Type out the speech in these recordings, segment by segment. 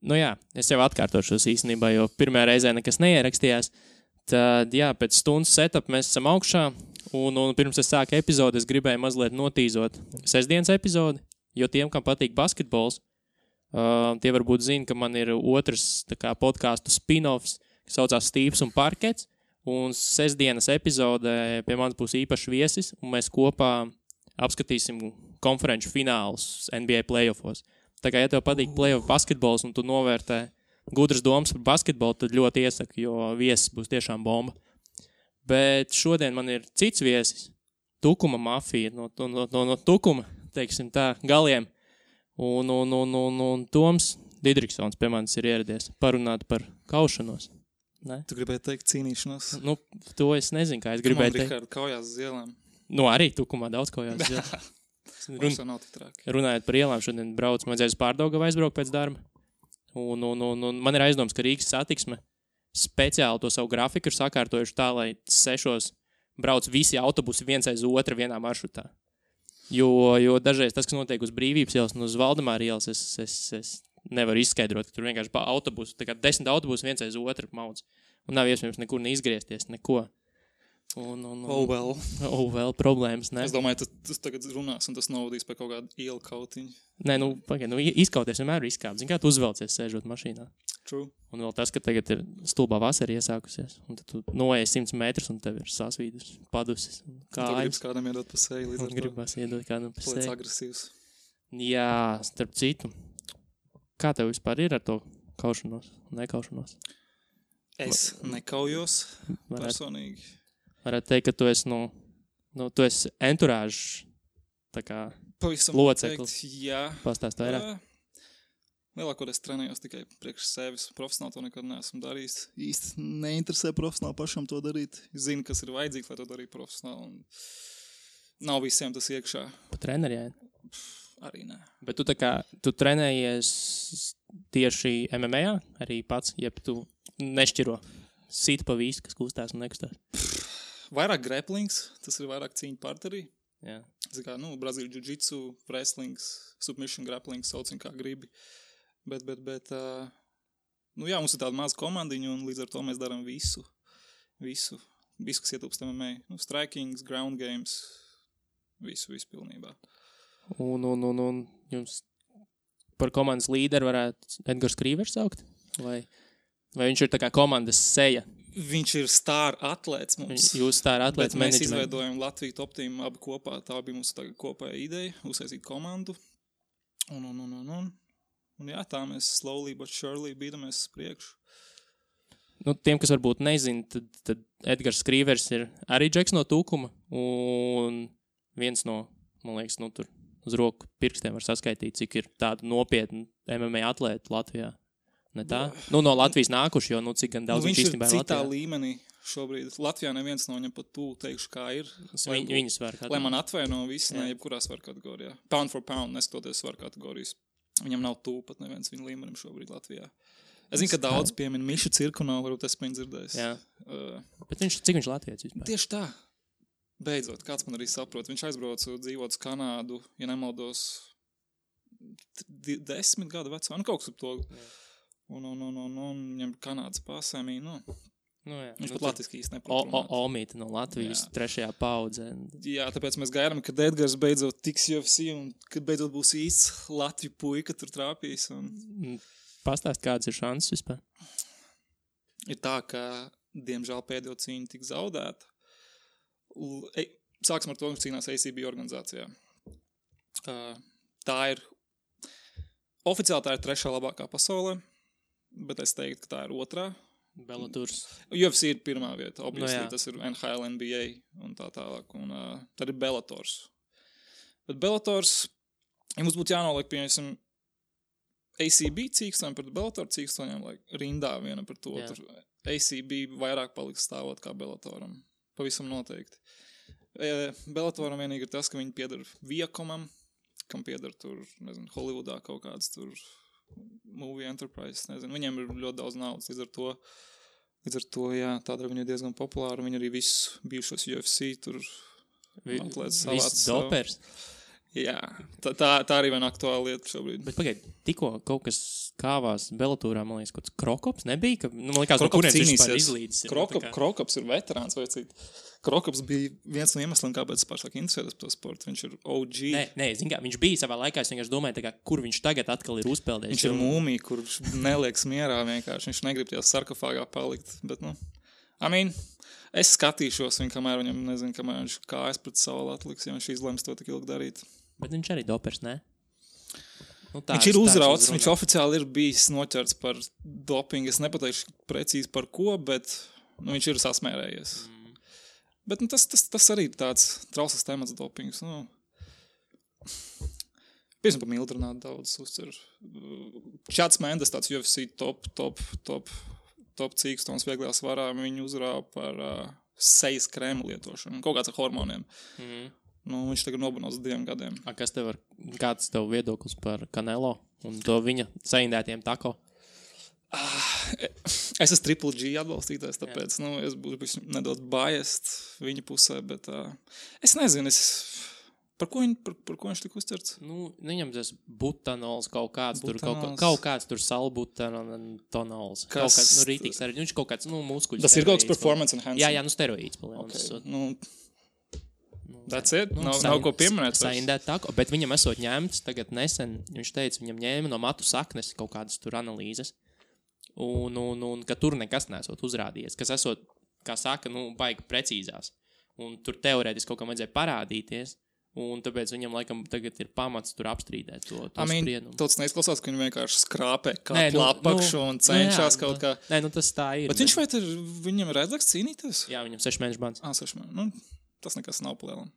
Nu jā, es jau atkārtošos īstenībā, jo pirmajā reizē nekas neierakstījās. Tad, jā, pēc stundas setup mēs esam augšā, un pirms es sāku epizodi, es gribēju mazliet notīzot sestdienas epizodi, jo tiem, kam patīk basketbols, tie varbūt zina, ka man ir otrs tā kā podcastu spin-offs, kas saucās Stīvs un Parkets, un sestdienas epizodē pie manis būs īpašs viesis, un mēs kopā apskatīsim konferenču finālus NBA playoffos. Tā kā, ja tev patīk playoff basketbols un tu novērtē gudras domas par basketbolu, tad ļoti iesaku, jo viesis būs tiešām bomba. Bet šodien man ir cits viesis, Tukuma mafija, no Tukuma, teiksim tā, galiem. Un Toms Didriksons pie manis ir ieradies parunāt par kaušanos. Ne? Tu gribēji teikt cīnīšanos? Nu, to es nezinu, kā es gribēju teikt. Rikārd, kaujās uz ielām. Nu, arī Tukumā daudz kaujās uz ielām. Runājot par ielām, šodien braucu, man vajadzēja uz Pārdaugavu aizbraukt pēc darba. Un man ir aizdoms, ka Rīgas satiksme speciāli to savu grafiku ir sakārtojuši tā, lai 6 brauc visi autobusi viens aiz otra vienā maršrutā. Jo dažreiz tas, kas notiek uz Brīvības ielas un uz Valdemāra ielas, es nevaru izskaidrot, ka tur vienkārši pa autobusu, tā kā 10 autobusi viens aiz otru maudz. Un nav iespējams nekur neizgriezties, neko. Oh well, problēmas, ne? Es domāju, tas tagad runās un tas novadīs pie kaut kādu ielu kautiņu. Nē, izkauties vienmēr ir izkāpt. Zini, kā tu uzvelcies sēžot mašīnā. True. Un vēl tas, ka tagad ir stulbā vasara iesākusies, un tad tu noeji 100 metrus un tev ir sasvīdus, padusis. Kā gribas kādam iedot pa seju līdz ar to. Gribas iedot kādam pa seju. Paliec agresīvs. Jā, starp citu. Kā tev vispār ir ar to kaušanos, nekaušanos? Es nekaujos personīgi. Varētu teikt, ka tu esi, tu esi enturāžs, tā kā pavisam loceklis. Jā. Pastāst vairāk. Lielākoties trenējos tikai priekš sevis. Profesionāli to nekad neesmu darījis. Īsti neinteresē profesionāli pašam to darīt. Zinu, kas ir vajadzīgs, lai to darītu profesionāli. Un nav visiem tas iekšā. Pa treneriem? Arī nē. Bet tu trenējies tieši MMA arī pats, jeb tu nešķiro sit pa visu, kas kustās un nekustās? Vairāk grapplings, tas ir vairāk cīņu partnerī. Jā. Kā, Brazīļu jiu-jitsu, wrestlings, submission grappling, saucam kā gribi. Bet, jā, mums ir tāda maza komandiņa un līdz ar to mēs darām visu, kas ietilpst MMA. Strikings, ground games, visu pilnībā. Un jums par komandas līderu varētu Edgars Krīvers saukt? Vai viņš ir tā kā komandas seja? Viņš ir star atlēts mums. Jūs star atlēts management. Mēs izveidojam Latviju Top Team abi kopā. Tā bija mūsu kopēja ideja, uzsaistīt komandu. Un jā, tā mēs slowly but surely bīdamies priekšu. Tiem, kas varbūt nezina, tad Edgars Krīvers ir arī džeks no Tukuma. Un viens no, man liekas, tur uz roku pirkstiem var saskaitīt, cik ir tādu nopietnu MMA atlētu Latvijā. Ne tā? No Latvijas nākuši, jo cik gan daudz viņš īstenībā ir citā līmenī šobrīd. Latvijā neviens no viņam pat tūl teikšu, kā ir. Viņu svaru kategorijā. Lai man atvaino visi, ne jebkurā svaru kategorijā. Pound for pound, neskatoties svaru kategorijas. Viņam nav tūl pat neviens viņa līmenim šobrīd Latvijā. Es zinu, ka daudz piemin Mišu Cirkunovs, varbūt es viņu dzirdējis. Jā. Bet cik viņš Latvijas vispār? Tieši tā. Beidzot, kāds man arī saprot. Viņš aizbrauca dzīvot uz Kanādu, ja nemaldos 10 gadu vecā. Kaut kas ap to. Jā. Un viņam Kanādas pasēmī, viņš pat latviski īsti neprot runāt. Omīte no Latvijas, 3. paudzē. Jā, tāpēc mēs gaidām, kad Edgars beidzot tiks UFC un kad beidzot būs īsts Latviju puika tur trāpīs. Pastāst, kādas ir šansas vispār? Ir tā, ka, diemžēl, pēdējo cīņu tik zaudēta. Sāksim ar to, ka cīnās ACB organizācijā. Tā ir, oficiāli tā ir 3. labākā pasaulē. Bet es teiktu, ka tā ir 2. Bellators. UFC ir 1. vieta. Obviously, tas ir NHL, NBA un tā tālāk. Un tad ir Bellators. Bet Bellators, ja mums būtu jānoliek, piemēram, ACB cīkstoņiem pret Bellator cīkstoņiem, rindā viena par to. Tur ACB vairāk paliks stāvot kā Bellatoram. Pavisam noteikti. Bellatoram vienīgi ir tas, ka viņi pieder Viacomam, kam pieder tur, nezinu, Hollywoodā kaut kāds tur movie enterprise, nezinu, viņiem ir ļoti daudz naudas, līdz ar to, jā, tādēļ viņi ir diezgan populāri, viņi arī visus bijušos UFC tur atlētas savāds. Viss dopers. Jā, tā arī viena aktuāla lieta šobrīd. Bet pagaid, tikko kaut kas kāvās Bellatorā, man liekas, kaut kāds Krokops nebija, ka, man liekas, Krokops no kurienes viņš cīnīsies. izlīdzis. Krokops ir veterāns vai cīt. Krokops bija viens no iemesliem, kāpēc es pārsāk interesētos par to sportu. Viņš ir OG. Nē, zin kā, viņš bija savā laikā, es vienkārši domāju, kā, kur viņš tagad atkal ir uzpeldējis. Viņš ir mūmija, kurš nelieks mierā vienkārši. Viņš negrib tajā sarkofāgā palikt, bet, es skatīšos viņu, kamēr viņam, nezinu, kamēr viņš kājas pret savu atliks, ja viņš izlems to tik ilgi darīt. Bet viņš arī dopers, ne? Viņš ir uzrauts, viņš oficiāli ir bijis noķerts par dopingu. Es nepateikšu precīzi par ko, bet viņš ir sasmērējies. Bet tas arī ir tāds trausls temats dopings. Piemēram, par mildrinātu daudz uzcer. Čats Mendes, tāds UFC top cīkstons vieglajā svarā, viņu uzrāva par sejas krēmu lietošanu. Kaut kāds ar hormoniem. Viņš tagad nobunos 2 gadiem. Kāds tev viedoklis par Canelo un to viņa saindētiem tako? Es esmu Triple G atbalstītājs, tāpēc es būšu nedaudz biased viņa pusē, bet es nezinu, par ko viņš tika uzcerts? Viņam tas butanols kaut kāds tur salbutanols. Kaut kāds, rītīgs arī. Viņš kaut kāds, muskuļs. Tas ir kaut kāds performance enhancing. Jā, steroīds. That's it? Nav ko pieminēt. Saindēt tako, bet viņam esot ņemts tagad nesen, viņš teica, viņam ņēma no matu saknes kaut kādas tur analīzes, un ka tur nekas nesot uzrādījies, kas esot, kā saka, baigi precīzās. Un tur teorētiski kaut kam vajadzēja parādīties, un tāpēc viņam laikam tagad ir pamats tur apstrīdēt to spriedumu. Tāds neizklausās, ka viņi vienkārši skrāpē kā plapakšu un cenšas kaut kā. Nē, tas tā ir. Bet viņam ir redzēts cīnīties? Jā, viņam 6 mēnešu bans. 6 mēneši. Tas nekas nav palielam.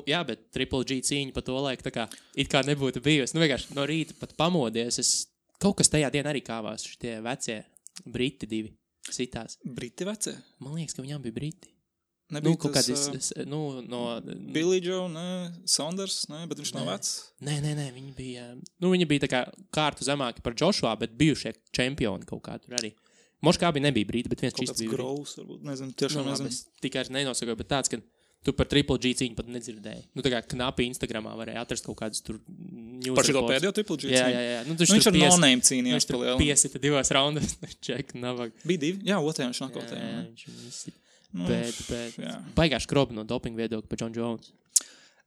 Jā, bet Triple G cīņa pa to laiku tā kā it kā nebūtu bijusi. Vienkārši no rīta pat pamodies. Kaut kas tajā dienā arī kāvās. Šitie vecie briti 2 sitās. Briti vecie? Man liekas, ka viņām bija briti. Nebija kaut tas no Billy Joe, Saunders, bet viņš nav vecs. Nē, viņi bija... viņi bija tā kā kārtu zemāki par Joshua, bet bijušie čempioni kaut kā tur arī. Moškā bija nebija briti, bet viens čisti bija. Kaut kāds Groves, varbūt, nezinu, tiešām nezinu. Es tikai nenosakoju, bet tāds, ka tu par Triple G cīņu pat nedzirdēji. Tā kā knapi Instagramā varēja atrast kaut kādus tur news. Par šito pēdējo Triple G cīņu? Jā. Viņš ar no-name cīnījās pa lielu. Viņš tur piesita 2 raundas. Ček, navag. Bija 2? Jā, otrajā viņš nokotēja. Jā, viņš izsita. Bet baigā skrobi no dopinga viedokļa par John Jones.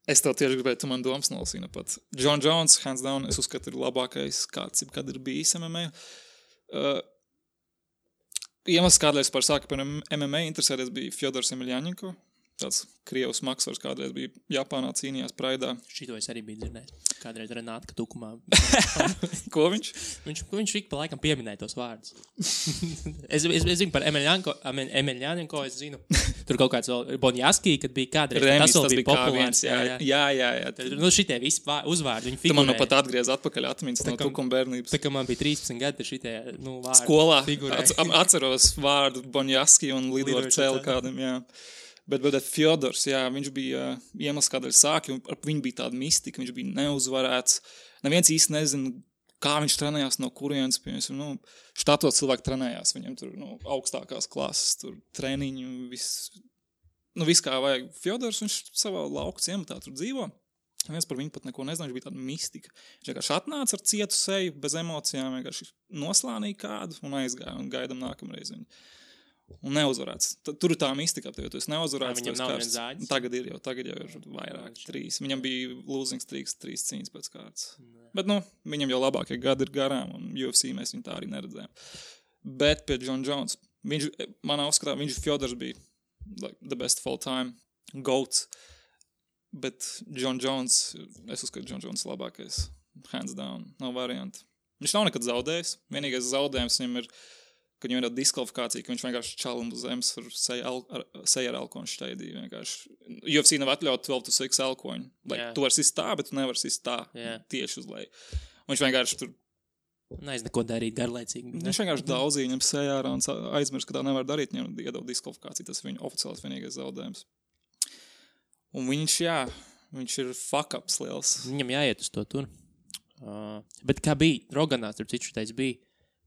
Es tev tieši gribēju, tu man domas nolasīji pat. John Jones, hands down, es uzskatu, ir labākais kāds, kad ir bijis MMA. Iemesls, kādēļ es par sāku par MMA interesēties, bija Fjodors Emelianenko. Tāds Krievs maksvars kādreiz bija Japānā, cīnījās Praidā. Šito es arī biju dzirdējis. Kādreiz Renātka tukumā. Ko viņš? Viņš ik pa laikam pieminēja tos vārdus. es zinu par Emelianenko, es zinu. Tur kaut kāds vēl Bonjaski, kad bija kādreiz. Remis, tas bija populārs. Jā. Šitie visi uzvārdi, viņi Tu figurēja. man pat atgriez atpakaļ atmiņas no tukuma bērnības. Tā kā man bija 13 gadi, šitie vārdi. Skolā atceros vārdu Bonjaski un lidoju ar cēlu kādam, jā. Bet Fjodors, jā, viņš bija iemesls, kādēļ sāki, un viņu bija tāda mistika, viņš bija neuzvarēts. Neviens īsti nezina, kā viņš trenējās, no kurienes, piemēram, štatos cilvēki trenējās, viņam tur augstākās klases, tur treniņu, viss kā vajag. Fjodors, viņš savā lauku ciematā tur dzīvo. Neviens par viņu pat neko nezina, viņš bija tāda mistika. Viņš vienkārši atnāca ar cietu seju, bez emocijām, vienkārši noslānīja kādu un aizgāja un gaidam nākamreiz viņu. Un neuzvarēts. Tur ir tā mistika, jo tu esi neuzvarēts. Viņam nav viens zāģis. Tagad jau ir vairāk, 3. Viņam bija losing streaks, 3 cīņas pēc kārtas. Bet, viņam jau labākie gadi ir garām, un UFC mēs viņu tā arī neredzējām. Bet pie John Jones, manā uzskatā, Fjodors bija the best of all time, GOAT. Bet John Jones, es uzskatu, John Jones labākais, hands down, nav varianti. Viņš nav nekad zaudējis. Vienīgais zaudējums viņam ir, ka viņam ir diskvalifikācija, ka viņš vienkārši čalim uz zemes ar seju ar elkoņu šteidīju. UFC nav atļaut 12-6 elkoņu. Tu vari sist tā, bet tu nevari sist tā tieši uz leju. Un viņš vienkārši tur... Neko darīt garlaicīgi. Viņš vienkārši daudzīja viņam sejā ārā un aizmirst, ka tā nevar darīt. Viņam iedod diskvalifikāciju. Tas ir viņa oficiāls vienīgais zaudējums. Un viņš ir fuck-ups liels. Viņam jāiet uz to tur. Bet kā bija, Roganās tur citu teica bija,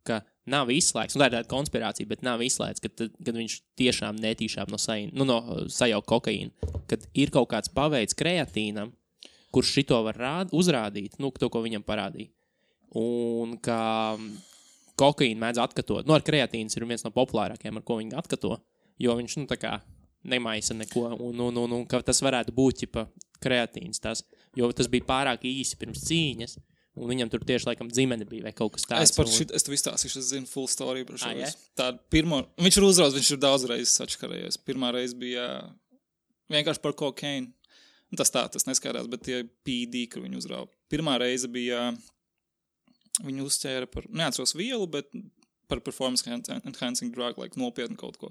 ka nav izslēgts, tā ir tāda konspirācija, bet nav izslēgts, kad viņš tiešām netīšām no sajauka kokaīna, kad ir kaut kāds paveids kreatīnam, kurš šito var uzrādīt, to, ko viņam parādīja. Un ka kokaīnu mēdz atkatot. Ar kreatīns ir viens no populārākajiem, ar ko viņi atkato, jo viņš, tā kā nemaisa neko, un ka tas varētu būt, kreatīns tas, jo tas bija pārāk īsi pirms cīņas, un viņam tur tieši, laikam, dzimene bija vai kaut kas tāds. Es tev izstāstīšu, es zinu full story par šo. Viņš ir uzraudzis, viņš ir daudz reizes atškarējies. Pirmā reize bija vienkārši par kokaīnu. Tas neskaidrās, bet tie PD, kur viņu uzrauga. Pirmā reize bija, viņu uzķēra par, neatceros vielu, bet par performance enhancing drug, nopietni kaut ko.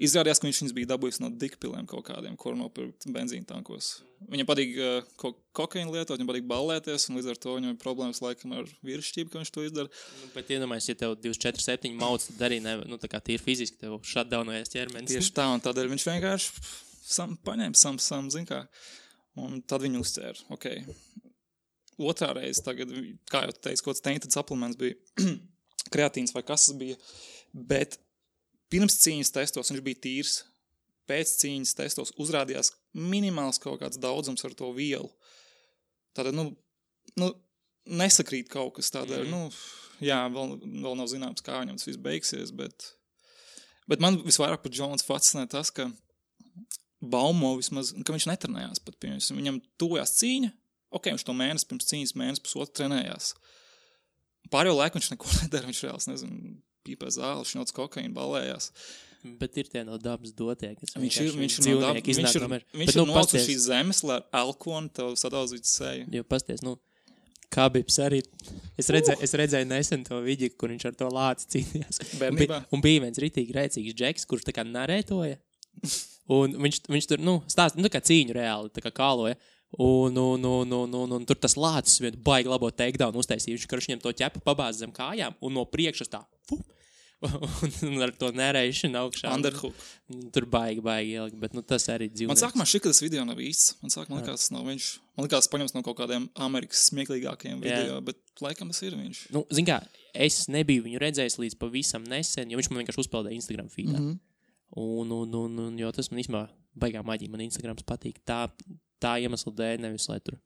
Izrādījās, ka viņš bija dabūjis no dikpilēm kaut kādiem, kur nopirkt benzīna tankos. Viņam patīk kokaīnu lietot, viņam patīk ballēties, un līdz ar to viņam ir problēmas laikam ar vīrišķību, ka viņš to izdara. Bet iedomājies, ja tev 24/7 mauc, tad arī tā kā tīri fiziski tev shutdownojas ķermenis. Tieši tā, un tādēļ viņš vienkārši paņēma zin kā, un tad viņu uzķēra. Okay. Otrā reize tagad, kā jau teicu, kaut kāds tainted supplements bija kreatīns vai kas tas bija, bet pirms cīņas testos viņš bija tīrs, pēc cīņas testos uzrādījās minimāls kaut kāds daudzums ar to vielu. Tātad, nesakrīt kaut kas tādēļ, vēl nav zināms, kā viņam tas viss beigsies, bet man visvairāk par Jones fascinē tas, ka baumo vismaz, ka viņš netrenējās pat pie viņus. Viņam tuvojās cīņa, viņš to mēnesi pirms cīņas, pusotru trenējās. Pārējo laiku viņš neko nedara, viņš reāls, nezinu, pīpē zāli, šņots kokaīnu, ballējās. Bet ir tie no dabas dotie, kas viņš ir nocis šīs zemes, lai ar alkonu tev sadauzītu seju. Jo pasties, Khabibs arī, es redzēju nesen to video, kur viņš ar to lāci cīnījās. Bērnībā. Un bija viens ritīgi rēcīgs džeks, kurš tā kā narētoja. Un viņš tur, stāst, tā kā cīņu reāli, tā kā kāloja. Un tur tas lācis vien baigi labo takedown uztaisīja. Viņš viņam to ķepu pabāz zem kājām un no priekšas tā, un ar to nerēšanu augšā. Underhook. Tur baigi ielikt, bet tas arī dzīvnieks. Man sākumā šķiet, ka tas video nav īsts. Man likās, tas nav viņš. Man likās, paņems no kaut kādiem Amerikas smieklīgākajiem video, bet laikam tas ir viņš. Zin kā, es nebiju viņu redzējis līdz pavisam nesen, jo viņš man vienkārši uzpeldēja Instagram feedā. Un jo tas man īstenībā baigā maģija, man Instagrams patīk tā iemesla dēļ, nevis lai tur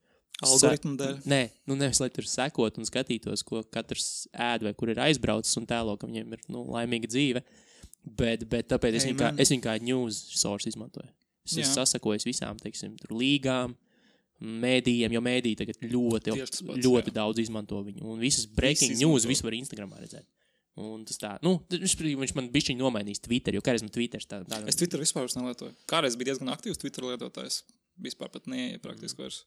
algoritmu dēļ? Nē, nevis lai tur sekot un skatītos, ko katrs ēd vai kur ir aizbraucis un tēlo, ka viņiem ir laimīga dzīve, bet tāpēc es viņu kā news source izmantoju. Es sasakoju visām, teiksim, tur līgām, mēdījiem, jo mēdīji tagad ļoti daudz izmanto viņu, un visas breaking news visu var Instagramā redzēt. Un tas tā, viņš man bišķiņ nomainīs Twitter, jo kādreiz man Twitters tā. Es Twitter vispār nelietoju. Kādreiz bija diezgan aktīvs Twitter lietotājs. Vispār pat neieja praktiski vairs.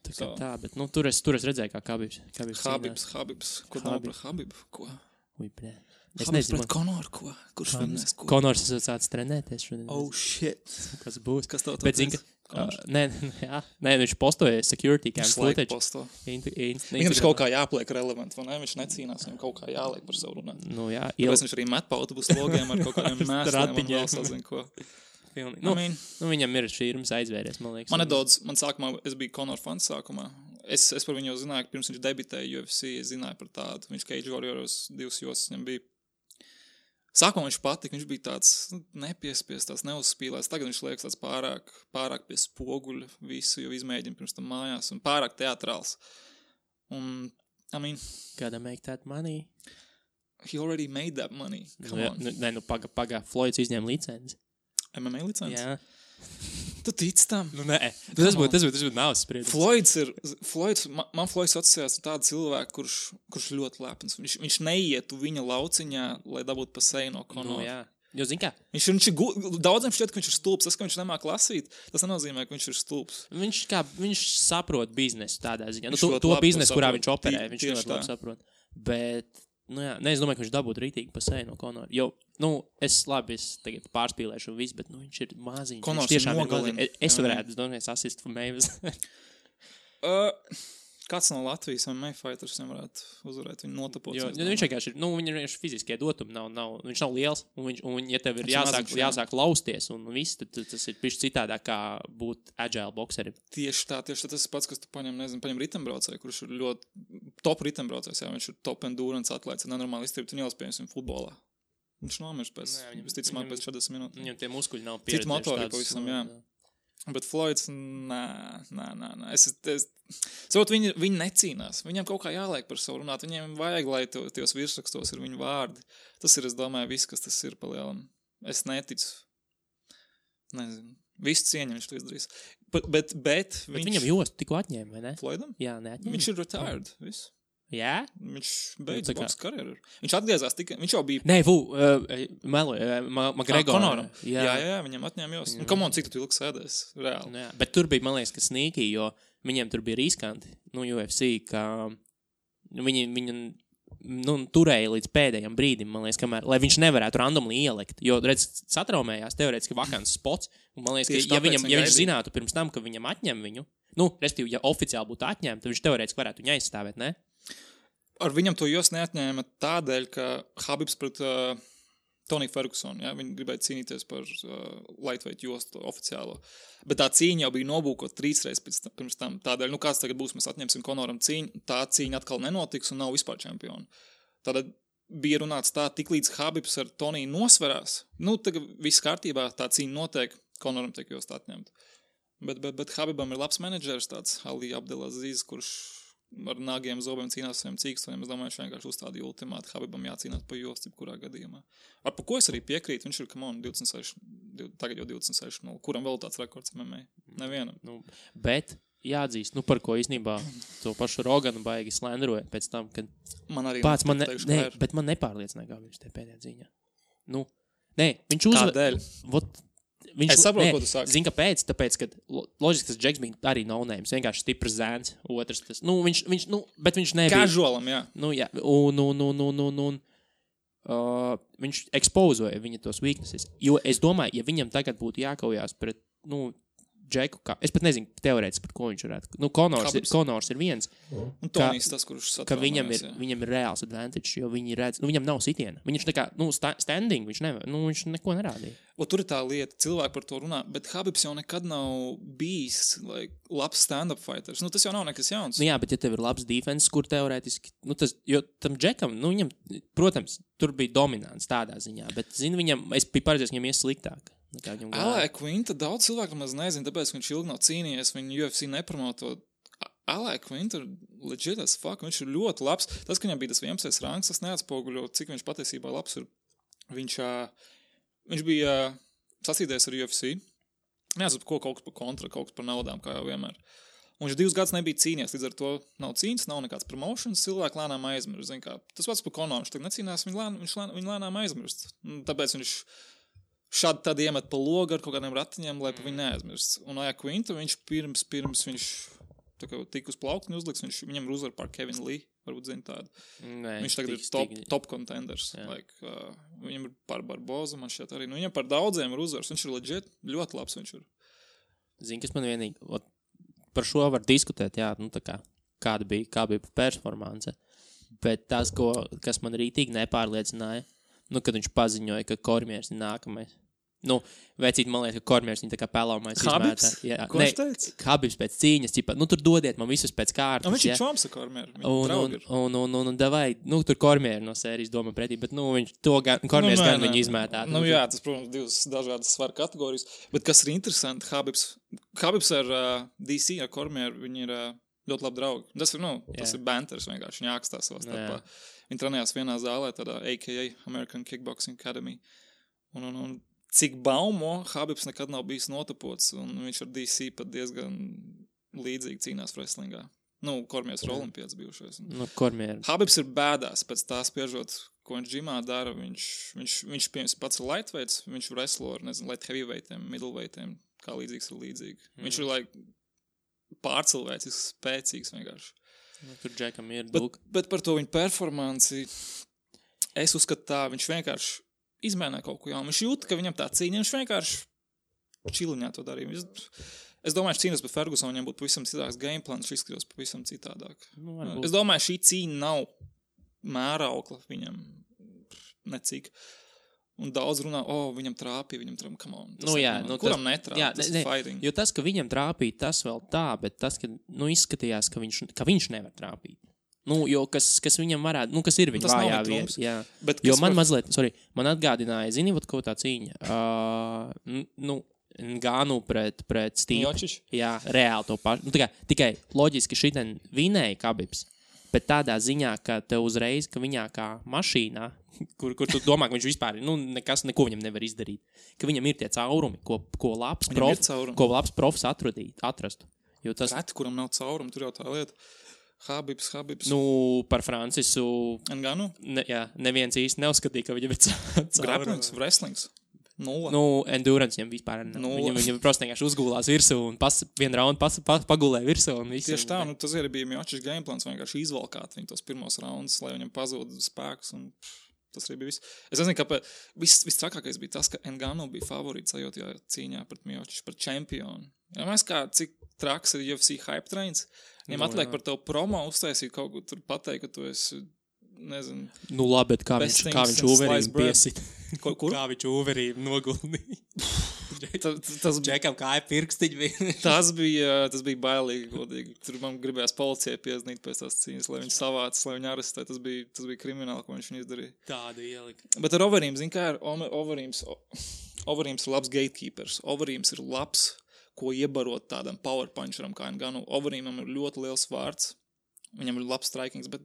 Tā, bet tur es redzēju, kā Khabibs. Khabibs. Ko nav par Khabibu? Ko? Ui, blē. Es nezinu. Pret Konoru, ko? Kurš vinnēs, ko? Konors esat sācis trenēties šodien. Oh, shit. Kas būs? Kas tev bet zin, nē, viņš postoja security cam footage. Viņam ir kaut kā jāpliek relevant, vai ne? Viņš necīnās, viņam kaut kā jāliek par savu runāt. Jā. Tāpēc viņš arī met pa autobusu logiem ar kaut kādiem mēsliem un vēl sazin ko. Viņam ir šīrums aizvēries, man liekas. Man sākumā, es biju Conor fans sākumā. Es par viņu jau zināju, pirms viņš debitēja UFC, es zināju par tādu. Viņš Cage Warriors 2 josas viņam bija. Sākumā viņš patika, viņš bija tāds nepiespies, tāds neuzspīlēs. Tagad viņš liekas tāds pārāk pie spoguļa visu, jo izmēģina pirms tam mājās un pārāk teatrāls. Un, Gotta make that money. He already made that money. Come on. Pagā, Floyds izņēma licenci. MMA licenci? Jā. Tu tici tam? Nē. Tas būtu nav spriedums. Man Floyds asociējās ar tādu cilvēku, kurš ļoti lepns. Viņš neietu viņa lauciņā, lai dabūtu pa seju no Conora. Jā. Jo, zin kā? Daudziem šķiet, ka viņš ir stulbs. Tas, ka viņš nemāk lasīt, tas nenozīmē, ka viņš ir stulbs. Viņš saprot biznesu tādā ziņā. To biznesu, kurā viņš operē, viņš ļoti labi saprot. Bet, es domāju, ka viņš dabūtu rītīgi pa seju no Conora. Jo, es tagad pārspīlēšu visu, bet, viņš ir maziņš. Conors viņš tiešām ir nogalina. Es varētu, assist for Mavis. Kāds no Latvijas MMA fighters varētu uzvarēt viņu notapot? Viņš vienkārši ir, viņam ir fiziskie dotumi, viņš nav liels, un ja tev ir jāsāk lausties un viss, tad tas ir pišķi citādāk kā būt agile bokserim. Tieši tā, tas ir pats, kas tu paņem ritembraucēju, kurš ir ļoti top ritembraucējs, viņš ir top endurance atlēts, nenormāli izturīt un ielas, piemēram, futbolā. Viņš nomirst pēc 40 minūtēm. Viņam tie muskuļi nav pieredzējuši. Cita motorika pavisam, jā. Bet Floyds, nā. Saprot, viņi necīnās. Viņam kaut kā jāliek par savu runāt. Viņiem vajag, lai tajos virsrakstos ir viņu vārdi. Tas ir, es domāju, viss, kas tas ir pa lielam. Es neticu. Nezinu. Visu cieņu viņš to izdarīs. Bet viņam jostu tikko atņēma, vai ne? Floydam? Jā, neatņēma. Viņš ir retired. Viss. Jā? Viņš beidz boks karjeru. Viņš atgriezās tikai, viņš jau bija... Nē, McGregor. Conoram. Jā, viņam atņēma jos. Un come on, cik tu ilgi sēdēs? Reāli. Jā, bet tur bija, man liekas, ka sneaky, jo viņiem tur bija riskanti, UFC, ka viņi turēja līdz pēdējiem brīdim, man liekas, kamēr, lai viņš nevarētu randomly ielikt, jo, redz, satraumējās teorētiski vakants spots, un man liekas, ka, ja viņš zinātu pirms tam, ka viņam atņem viņu, respektīvi, ja oficiāli būtu atņemta, tad viņš teorētiski varētu viņu aizstāvēt, ne? Ar viņam to jos neatņēma tādēļ, ka Habibs pret Tony Ferguson, ja, viņi gribēja cīnīties par lightweight jostu oficiālo. Bet tā cīņa jau bija nobūkot 3 reizes pirms tam. Tādēļ, kāds tagad būs, mēs atņemsim Conoram cīņu, tā cīņa atkal nenotiks un nav vispār čempioni. Tātad bija runāts tā, tik līdz Habibs ar Toniju nosverās. Tagad viss kārtībā, tā cīņa notiek, Conoram tiek jost atņemt. Bet Habibam ir labs menedžers, tāds Ali Abdelaziz, kurš ar nāgiem zobiem cīnās saviem cīkstoņiem. Es domāju, viņš vienkārši uzstādīja ultimātu. Habibam jācīnās pa jostu, kurā gadījumā. Ar pa ko es arī piekrītu, viņš ir, tagad jau 26, kuram vēl tāds rekords MMA? Nevienam. Bet jāatzīst, par ko īstenībā to pašu Roganu baigi slenderoja pēc tam, kad man arī bet man nepārliecināja, kā viņš te pēdējā dzīņā. Viņš Kādēļ? Es saprotu, ko tu saki. Zini, kāpēc? Tāpēc, ka loģiski tas Džeks bija arī no-names, vienkārši stiprs zēns, otrs tas. Bet viņš nebija. Casualam, jā. Jā. Viņš ekspozoja viņa tos weaknesses. Jo es domāju, ja viņam tagad būtu jākaujās pret, Džeku, es pat nezinu teorētiski, par ko viņš varētu. Conors ir viens. Un Tonijs tas, kurš ka viņam ir reāls advantage, jo viņi redz, viņam nav sitiena. Viņš tā kā, standing, viņš nevar, viņš neko nerādīja. Tur ir tā lieta, cilvēki par to runā, bet Habibs jau nekad nav bijis labs stand-up fighters. Tas jau nav nekas jauns. Jā, bet ja tev ir labs defense, kur teorētiski, jo tam Džekam, viņam, protams, tur bija dominants tādā ziņā, bet, es biju paredzējis, viņam ies sliktāk. Alē Quinta daudz cilvēku maz nezinu, tāpēc, ka viņš ilgi nav cīnījies, viņu UFC nepromoto. Alē Quinta legit as fuck, viņš ir ļoti labs. Tas, ka viņam bija tas 11. rangs, tas neatspoguļo, cik viņš patiesībā labs ir. Viņš bija sasīdējies ar UFC. Neatceru, kaut kas par kontra, kaut kas par naudām, kā jau vienmēr. Un viņš 2 gadus nebija cīnījies, līdz ar to nav cīņas, nav nekāds promotions, cilvēki lēnām aizmirst. Tas pats par Conoru, viņš tagad necīnās, viņš lēnām aizmirst. Tāpēc viņš šādi tad iemet pa logu ar kaut kādiem ratiņiem, lai pa viņu neaizmirst. Un Aja Quinta, viņš pirms viņš tik uz plauktiņu uzliks, viņam ir uzvar pār Kevin Lee, varbūt zina tādu. Viņš tagad ir top contenders. Viņam ir pār Barboza, man šķiet arī. Viņam par daudziem ir uzvars. Viņš ir legit, ļoti labs viņš ir. Zini, kas man vienīgi, par šo var diskutēt, jā, kāda bija performance. Bet tas, kas man rītīgi nepārliecināja, kad viņš paziņoja, ka Kormiers ir nākamais. Vecīt, man liekas, ka Kormiers viņa tā kā pelāmais izmētā. Ko viņš teica? Habibs pēc cīņas, tur dodiet man visus pēc kārtas. Viņš ir čoms ar Kormieru, viņa draugi ir. Un davai, tur Kormieru no sērijas domā pretī, bet Kormiers gan viņu izmētā. Jā, tas, protams, 2 dažādas svaru kategorijas. Bet kas ir interesanti, Habibs ar DC, ar Kormieru, viņi ir ļoti labi draugi. Tas ir banters vienkārši, viņi ākstās savā starpā. Viņi trenējās vienā zālē, tādā AKA, American Kickboxing Academy. Un cik baumo, Habibs nekad nav bijis notapots, un viņš ar DC pat diezgan līdzīgi cīnās wrestlingā. Kormiers ir olimpiāts bijušais. Habibs ir bēdās pēc tā spiežot, ko viņš džimā dara. Viņš pats ir lightweights, viņš wrestlo ar, light heavyweightiem, middleweightiem, kā līdzīgs ir līdzīgi. Viņš ir pārcilvēcisks, spēcīgs vienkārši. Tur Džekam ir bet par to viņa performanci es uzskatu tā, viņš vienkārši izmēnē kaut ko jaunu. Viņš jūt, ka viņam tā cīņa, viņš vienkārši čiliņā to darīja. Es domāju, ka cīnās pret Fergusonu viņam būtu pavisam citāks gameplans, viņš izskatījās pavisam citādāk. Es domāju, šī cīņa nav mēraukla viņam necik. Un daudz runā, viņam trāpīja, come on. Kuram netrāpīja, tas ir fighting. Jo tas, ka viņam trāpīja, tas vēl tā, bet tas, ka izskatījās, ka viņš nevar trāpīt. Jo kas viņam varētu, kas ir viņa vājā vieta. Jo man mazliet, man atgādināja, zini, ko tā cīņa. Nganu pret Steve. Miocic? Jā, reāli to pašu. Nu, tikai loģiski šitien vinēja Khabibs, bet tādā ziņā, ka tev uzreiz, ka viņā kā mašīnā, kur tu domā, ka viņš vispār, neko viņam nevar izdarīt, ka viņam ir tie caurumi, ko labs profs atrastu. Jo tas... Reti, kuram nav caurumi, tur jau tā lieta. Khabibs. Par Francisu... Nganu? Neviens īsti neuzskatīja, ka viņam ir caurumi. Grapplings, wrestlings. Nulle. Endurance viņam vispār nav. Viņam prosti vienkārši uzgulās virsū un vienu raundu pagulēja virsū un visu. Tieši tā, tas arī bija Miocic gameplans, vienkārši izvalkāt viņu tos pirmos raundus, lai viņam pazūd spēks un tas arī bija viss. Es nezinu, kāpēc vistrakākais bija tas, ka Ngannou bija favorīts sajūtajā cīņā pret Miocic, par čempionu. Ja mēs kā, cik traks ir UFC hype trains, viņam atliek par tev promo uztaisīt kaut ko tur pateikt, ka tu esi, nezinu... labi, bet kā viņš Uverīm piesit. Kur? Kā viņš Uverīm noguldīja. Tas Džekam kāja pirkstiņi bija. tas bija bailīgi, godīgi. Tur man gribējās policijai pieznīt pēc tās cīņas, lai viņi savāc, lai viņi arestē. Tas bija krimināli, ko viņš izdarīja. Tāda ielika. Bet ar Overeem, zin kā ir, Overeems ir labs gatekeepers. Overeems ir labs, ko iebarot tādam power puncheram kā Ngannou. Overeemam ir ļoti liels vārds. Viņam ir labs strikings, bet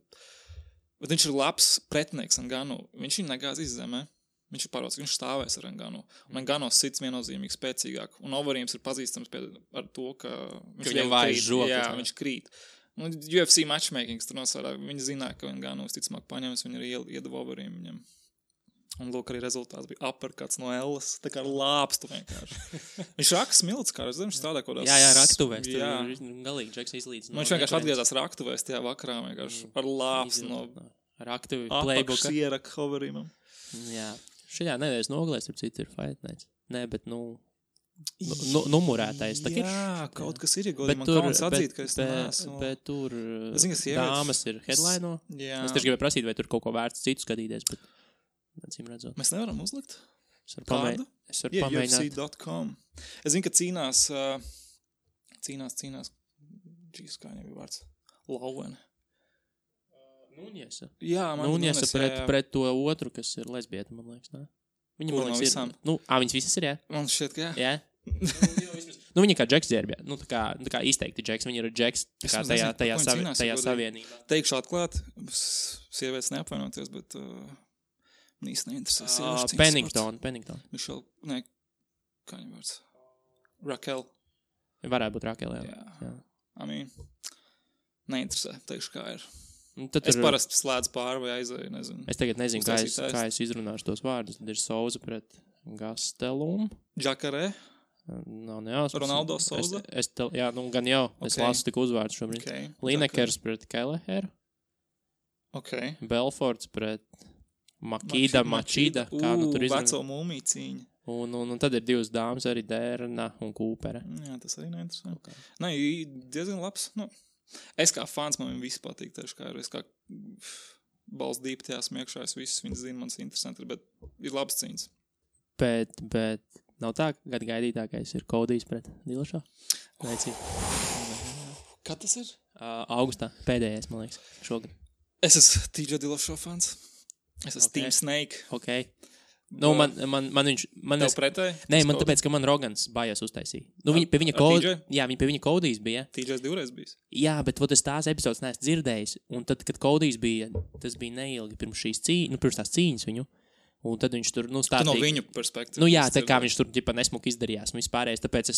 viņš ir labs pretinieks Ngannou. Viņš viņu negāz izzemē. Viņš ir pārvalds, ka viņš stāvēs ar Ngannou. Un Ngannou sits viennozīmīgi spēcīgāk. Un Overeems ir pazīstams ar to, ka viņš viņam vājas žokas. Jā, viņš krīt. Un UFC matchmakings tur nosārā. Viņi zināja, ka Ngannou visticamāk paņems, viņi arī iedeva Overeem viņam. Un lūk, arī rezultāts bija uppercuts no Ellas. Tā kā lāpstu vienkārši. Viņš rakas milts, kā viņš strādā kaut kādās... Jā, raktuvēs. Galīgi Džeks izlīdz. Viņš vienkārši atgriezās raktuvēs tajā vakarā vienkārši ar lāpstu no... Raktuvi playbooka. Apakšs ieraka Overeemam. Jā. Šajā nedēļas nogalēs, ar citu ir Fight Nights. Nē, bet, numurētais. Jā, kaut kas ir, godīgi. Man kauns atzīt, ka es neesmu. Bet tur dāmas ir headline. Es tieši gribēju prasīt, vai tur kaut ko vērts citu skatīties, bet acīm redzot. Mēs nevaram uzlikt? Es varu pamēģināt. UFC.com. Es zinu, ka cīnās, Džīs, kā viņam bija vārds? Lauvene. Nuniesa. Jā, man Nuniesa pret to otru, kas ir lesbieta, man liekas, ne? Viņa, man liekas, ir... viņas visas ir, jā? Man šķiet, ka jā. Jā? Viņa kā Džeks dzērbjā. Tā kā izteikti Džeks. Viņa ir Džeks tajā savienībā. Teikšu atklāt, sievietes neapvainoties, bet īsti neinteresē sieviešu cīņas. Pennington. Mišel, ne, kā viņa vārds? Raquel. Varētu būt Raquel, jā. Neinteresē, teikšu, kā ir. Es parasti slēdzu pāri vai aizēju, nezinu. Es tagad nezinu, kā es izrunāšu tos vārdus. Tad ir Souza pret Gastelum. Džakarē. Nav nejausmas. Ronaldo Souza. Jā, gan jau. Es lasu tik uzvārdu šobrīd. Okay. Linekers pret Kelleheru. Okay. Belforts pret Machida. Kā tur izrunā. Veco mūmiju cīņa. Un tad ir divas dāmas, arī Dērna un Kūpere. Jā, tas arī neinteresē. Okay. Nē, diezgan labs, Es kā fans, man viss patīk, tieši kā ir. Es kā balss dīpi tajā smiekšā, es visus viņas zinu, man tas interesanti, bet ir labs cīņas. Bet nav tā, ka gaidītākais ir Kodijs pret Dillashaw? Kad tas ir? Augustā, pēdējais, man liekas, šogad. Es esmu TJ Dillashaw fans. Es esmu Team Snake. Ok. Man viņš... Tev pretēji? Nē, man tāpēc, ka man Rogans bājās uztaisīja. Pie viņa Kodijs bija. TJs divreiz bijis. Jā, bet es tās epizodes neesmu dzirdējis. Un tad, kad Kodijs bija, tas bija neilgi pirms šīs cīņas, pirms tās cīņas viņu. Un tad viņš tur, stāstīja... Tu no viņu perspektīvas. Jā, tā kā viņš tur, nesmuki izdarījās un vispārējais. Tāpēc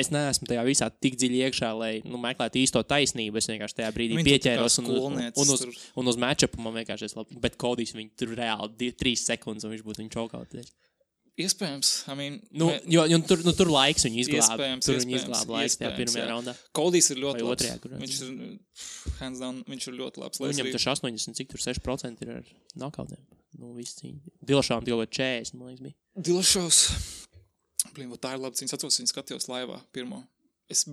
es neesmu tajā visā tik dziļi iekšā, lai meklētu īsto taisnību. Es vienkārši tajā brīdī pieķēros un uz matchupu man vienkārši es labi. Bet Kodijs viņu tur reāli 3 sekundes un viņš būtu viņu čaukautējis. Iespējams. Tur laiks viņu izglāba. Tur viņu izglāba laiks tajā pirmajā raundā. Kodijs ir ļoti labs. Viņš ir, hands down, viņš ir ļoti labs. Viņam taču 86% ir ar knockoutiem. Viss cīņa. Dillashaw jau 40, man liekas, bija. Dillashaws. Tā ir labi cīņas. Atceros, viņu skatījos laivā pirmo. Es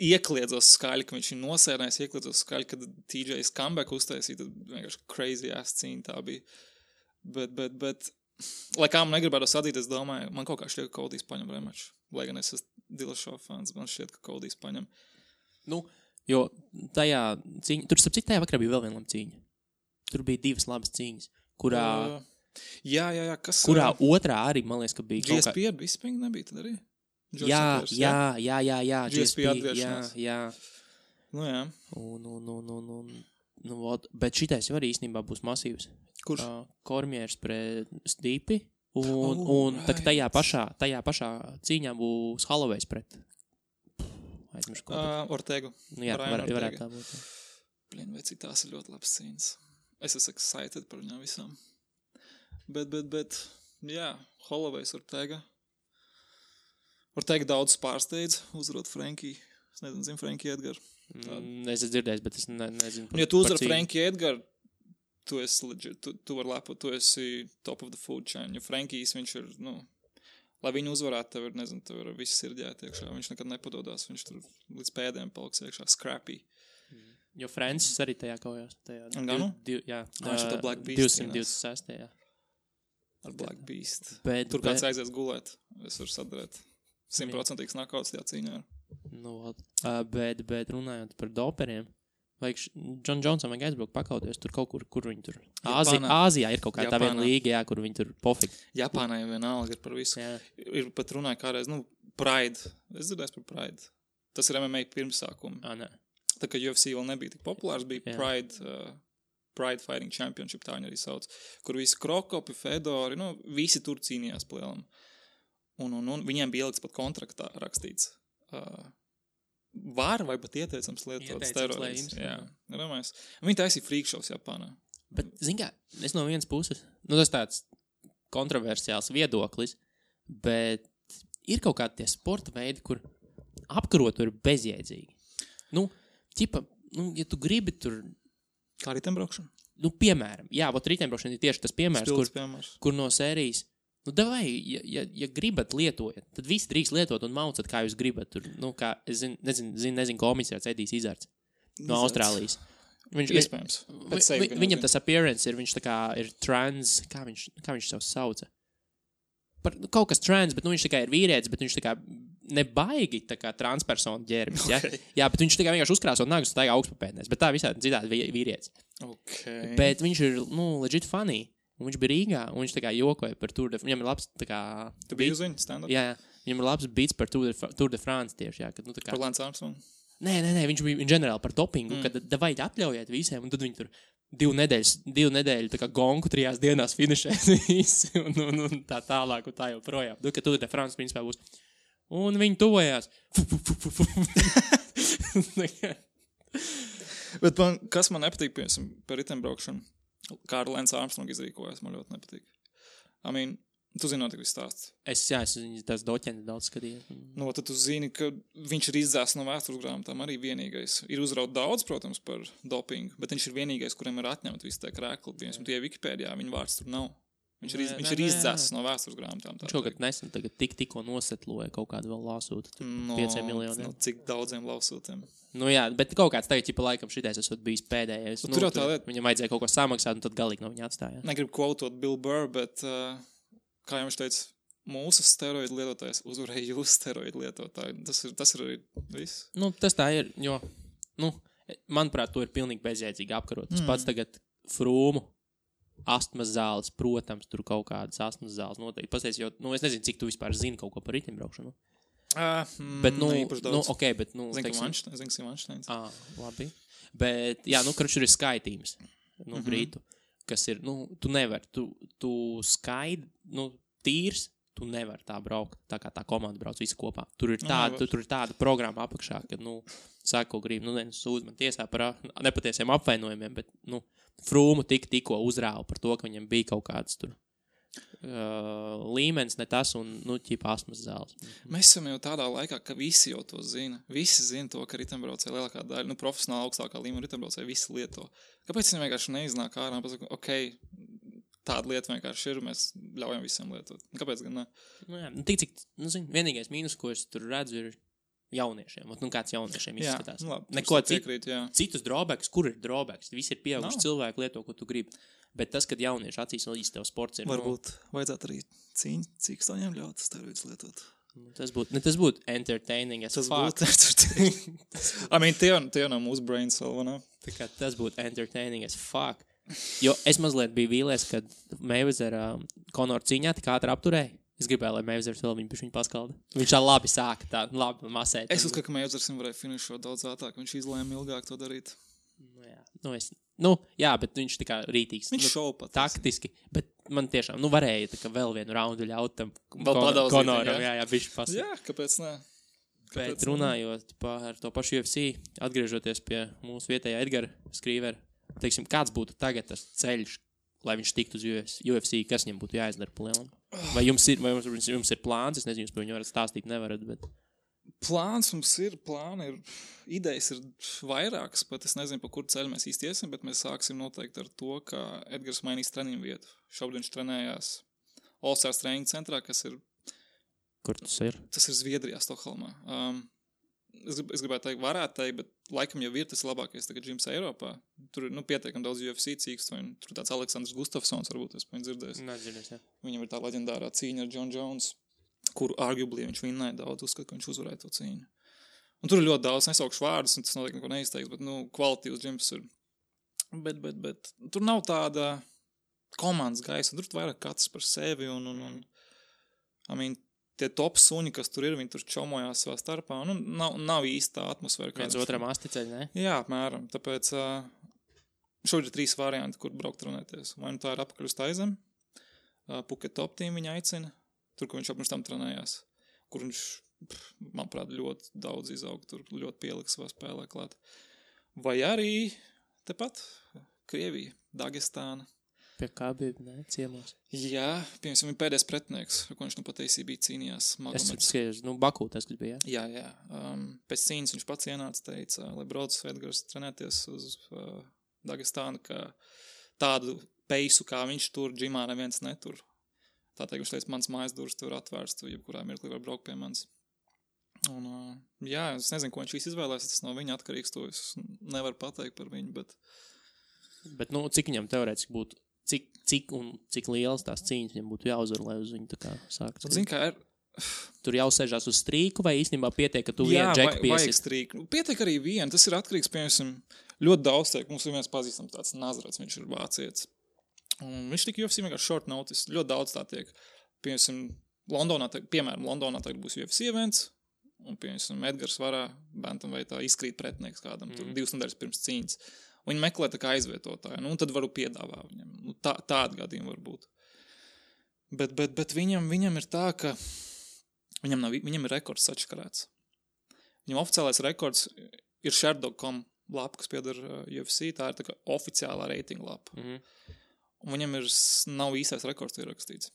iekliedzos skaļi, ka viņš ir nosērnājis, iekliedzos skaļi, kad TJ's comeback uztaisīja, tad vienkārši crazy ass cīņa tā bija. Bet lai kā man negribētu sadīt, es domāju, man kaut kā šķiet, ka Kodijs paņem rematchu. Lai gan es esmu Dillashaw fans, man šķiet, ka Kodijs paņem. Jo tajā cīņa, tur starp citu tajā vakarā bija vēl viena laba cīņa. Tur bija 2 labas cīņas, kurā Jā, kas... Kurā otrā arī, man liekas, ka bija GSP ar Bisping nebija tad arī? Jā. GSP atgriešanās. Jā. Nu jā. Bet šitais jau arī īstenībā būs masīvs. Kurš? Kormiers pret Stipi. Un tajā pašā cīņā būs Holloway's pret. Aizmiršu ko. Ortegu. Nu jā, varētu tā būt. Blin, vai cik tās ir ļoti labs cīņas. Es esmu excited par viņām visām. Bet, jā, Holloway's Ortega. Ortega daudz pārsteidz, uzvarot Frankie. Es nezinu, Frankie Edgar. Es esmu dzirdējis, bet es nezinu. Ja tu uzvar Frankie Edgar, tu esi legit, tu vari lepot, tu esi top of the food chain. Jo Frankies, viņš ir, lai viņu uzvarētu, tev ir, nezinu, tev ir viss sirdjāt iekšā. Viņš nekad nepododās, viņš tur līdz pēdējiem paliks iekšā, scrappy. Jo Francis arī tajā kaujās. Ganu? Jā. Viņš ir Black Beast. 226. Jā. Ar Black Beast. Bet, tur kāds aizies gulēt, es varu sadarēt. 100% nakauts tajā cīņā. Bet runājot par doperiem, vajag John Johnson vajag aizbraukt pakauties tur kaut kur viņi tur. Āzijā ir kaut kā tā viena līga, jā, kur viņi tur pofik. Japānā jau vienalga ir par visu. Jā. Ir pat runāja kādreiz, Pride. Es dzirdēju par Pride. Tas ir MMA pirmsākumi. Nē. Tā kā UFC vēl nebija tik populārs, bija Pride Fighting Championship, tā viņi arī sauc, kur visi krokopi, fedori, visi tur cīnījās plēlam. Un viņiem bija ieliks pat kontraktā rakstīts. Var vai pat ieteicams lietot steroidus. Jā, ramais. Viņi taisīja freak shows Japānā. Bet, zin kā, es no vienas puses, tas tāds kontroversiāls viedoklis, bet ir kaut kādi tie sporta veidi, kur apkarot ir bezjēdzīgi. Ja tu gribi tur... Kā ritembraukšana? Piemēram, ritembraukšana ir tieši tas piemērs, kur no sērijas, davai, ja gribat lietojat, tad visi drīkst lietot un maucat, kā jūs gribat. Tur, es nezinu, komisārs Edijs Izards no Austrālijas. Iespējams. Viņam tas appearance ir, viņš tā kā ir trans, kā viņš sev sauca? Kaut kas trans, bet viņš tā kā ir vīrietis, bet viņš tā kā nebaigi tā kā transpersonu ģērbis, ja? Okay. Jā, bet viņš tā kā vienkārši uzkrāsot nagus un staigā augstpapēdnēs, bet tā visādi citādi vīrietis. Okay. Bet viņš ir, legit funny, un viņš bija Rīgā, un viņš tā kā jokoja par Tour de France, viņam ir labs tā kā... Tu biji uz viņu stand-up? Jā, viņam ir labs beats par Tour de France tieši, jā. Kad, tā kā... Par Lance Armstrong? Nē, viņš bija ģenerāli par dopingu, kad davai atļaujiet visiem, un tad viņi tur 2 nedēļu tā kā gonku 3 dienās finišēs visi, un tā tālāk, un tā joprojām. Ka Tour de France principā būs. Un viņi tuvojās. Bet kas man nepatīk, piemēram, par ritembraukšanu, kā ar Lance Armstrong izrīkojas, man ļoti nepatīk. Tu zini notiek viss stāsts. Es tās doķeni daudz skatīju. Tad tu zini, ka viņš ir izdzēsts no vēstures grāmatām arī vienīgais. Ir uzraut daudz, protams, par dopingu, bet viņš ir vienīgais, kuriem ir atņemt visi tie krēkli. Piemēram, tie Wikipēdijā, viņa vārds tur nav. Viņš ir izdzēsts no vēstures grāmatām. Viņš kaut kad nesen tikko nosetloja kaut kādu vēl lāsūtu. 5 miljoniem. Cik daudziem lāsūtiem? Jā, bet kaut kāds tagad, laikam, šitais esot bijis pēdējais. Tur jau tā lieta. Viņam vajadzēja kaut ko samaksāt, un tad galīgi no viņa atstāja. Negribu quotot Bill Burr, bet, kā jau viņš teica, mūsu steroidu lietotājs uzvarēja jūsu steroidu lietotāju. Tas ir arī viss. Tas tā ir, jo, manuprāt, to ir pilnīgi bezjēdzīgi apkarot. Tas pats tagad frūmu. Astmas zāles, protams, tur kaut kādas astmas zāles noteikti. Pasties, jo, es nezinu, cik tu vispār zini kaut ko par ritimbraukšanu. Bet, okay, bet, Zinu, Vanšteins. Labi. Bet, jā, tur ir skaitījums, brītu, kas ir, tu nevar, tu skaidi, tīrs, tu nevar tā braukt, tā kā tā komanda brauc visi kopā. Tur ir tāda programma apakšā, kad, sāk, ko grib, sūdz man tiesā par nepatiesiem apvainojumiem, bet, frūmu tikko uzrāva par to, ka viņam bija kaut kāds tur līmenis, ne tas, un, ķipa astmas zāles. Mēs esam jau tādā laikā, ka visi jau to zina. Visi zina to, ka ritembraucēji lielākā daļa, profesionāli augstākā līmenī ritembraucēji visi lieto. Kāpēc viņi vienkārši neiznāk ārā un pasaka, tāda lieta vienkārši ir, mēs ļaujam visiem lietot. Kāpēc gan ne? Tik cik, vienīgais mīnus, ko es tur redzu, ir jauniešiem. Kāds jauniešiem izskatās. Neko citus drawbacks, kur ir drawbacks? Visi ir pieauguši cilvēki lieto, ko tu gribi. Bet tas, kad jaunieši acīs vēl īsti tev sports ir... Varbūt vajadzētu arī cīkstoņiem ļaut steroidus lietot. Tas būtu entertaining as fuck. Tie no mūsu brains vēl, vai ne? Tas būtu entertaining as fuck. Jo es mazliet biju vīlies, kad Mayweather Conor cīņā tik ātri apturēja. Es gribēju, lai Mayweather vēl viņu paskalda. Viņš tā labi sāka, tā labi masēt. Es uzskatu, ka Mayweather varēja finišot daudz ātrāk. Viņš izlēma ilgāk to darīt. Jā, bet viņš tā kā rītīgs. Viņš šauj pat. Taktiski. Bet man tiešām, varēja tā kā vēl vienu raundu ļaut tam Conoram. Jā, viņš pasaka. Jā, kāpēc ne? Bet runājot par to pašu UFC, atgriežoties pie mūsu vietējā Edgara Skrīvera, teiksim, kāds būtu tagad tas ceļš, lai viņš tiktu uz UFC, kas viņam būtu jāizdara pa lielam? Vai jums ir plāns? Es nezinu, jūs par viņu varat stāstīt, nevarat, bet... Plāns mums ir, idejas ir vairākas, pat es nezinu, pa kur ceļu mēs īsti iesim, bet mēs sāksim noteikti ar to, ka Edgars mainīs treniņu vietu. Šobrīd viņš trenējās All Stars treniņu centrā, kas ir... Kur tas ir? Tas ir Zviedrijā, Stokholmā. Es gribētu teikt, varētu teikt, bet laikam jau ir tas labākais tagad džims Eiropā. Tur ir, pietiekami daudz UFC cīkstoņu. Tur tāds Aleksandrs Gustafsons, varbūt es viņu dzirdēju. Nedzirdēs, jā. Viņam ir tā leģendārā cīņa ar John Jones, kuru arguably viņš vinnēja daudz, uzskat, ka viņš uzvarēja to cīņu. Un tur ir ļoti daudz, nesaukšu vārdus, un tas noteikti neko neizteiks, bet, kvalitīvs džims ir. Bet tur nav tāda komandas gaisa, tur vairāk katrs par sevi, tie top suņi, kas tur ir, viņi tur čomojās savā starpā, nav īsta atmosfēra. Viens otram asticeļ, ne? Jā, apmēram, tāpēc šobrīd ir 3 varianti, kur braukt trenēties. Vai tā ir apakaļ uz Taizem, Phuket Top Team viņa aicina, tur, kur viņš apmēram tam trenējās, kur viņš, manuprāt, ļoti daudz izaug, tur ļoti pieliks savā spēlē klāt. Vai arī tepat Krievija, Dagestāna. Pie kā bija, ne, ciemos? Jā, piemēram, viņa pēdējais pretinieks, ko viņš pat ACB cīnījās. Es skaidrs, Bakū tas, kas bija, jā? Jā. Pēc cīņas viņš pats ienāca, teica, lai brauc Edgars trenēties uz Dagestānu, ka tādu peisu, kā viņš tur, džimā neviens netur. Tā teikt, viņš teica, mans mājas durvis tur atvērts, tu jebkurā mirklī var braukt pie manis. Un, jā, es nezinu, ko viņš izvēlēs, tas no viņa atkarīgs, to es nevaru pateikt par viņu, bet... Bet, cik viņam teorētiski būtu? Cik liels tās cīņas viņam būtu jāuzvar, lai uz viņu tā kā sākt? Zini, kā ir... Tur jau sēžās uz strīku vai īstenībā pietiek, ka tu vienu džeku piesies? Jā, vajag strīku. Pietiek arī vienu. Tas ir atkarīgs, piemēram, ļoti daudz teik. Mums ir viens pazīstams tāds Nazarets, viņš ir vācietis. Un viņš tika UFC vienkārši short notice. Ļoti daudz tā tiek. Piemēram, Londonā tagad būs UFC events, un, piemēram, Edgars varā, bantamveitā izkrīt pretinieks kādam, tur 2 nedēļas pirms cīņas. Viņi meklē tā kā aizvietotāju, un tad varu piedāvāt viņam. Tāda gadījuma var būt. Bet viņam ir tā, ka viņam ir rekords sačkarēts. Viņam oficiālais rekords ir Sherdog.com lapa, kas pieder UFC, tā ir tā kā oficiālā reitinga lapa. Un viņam nav īstais rekords ierakstīts.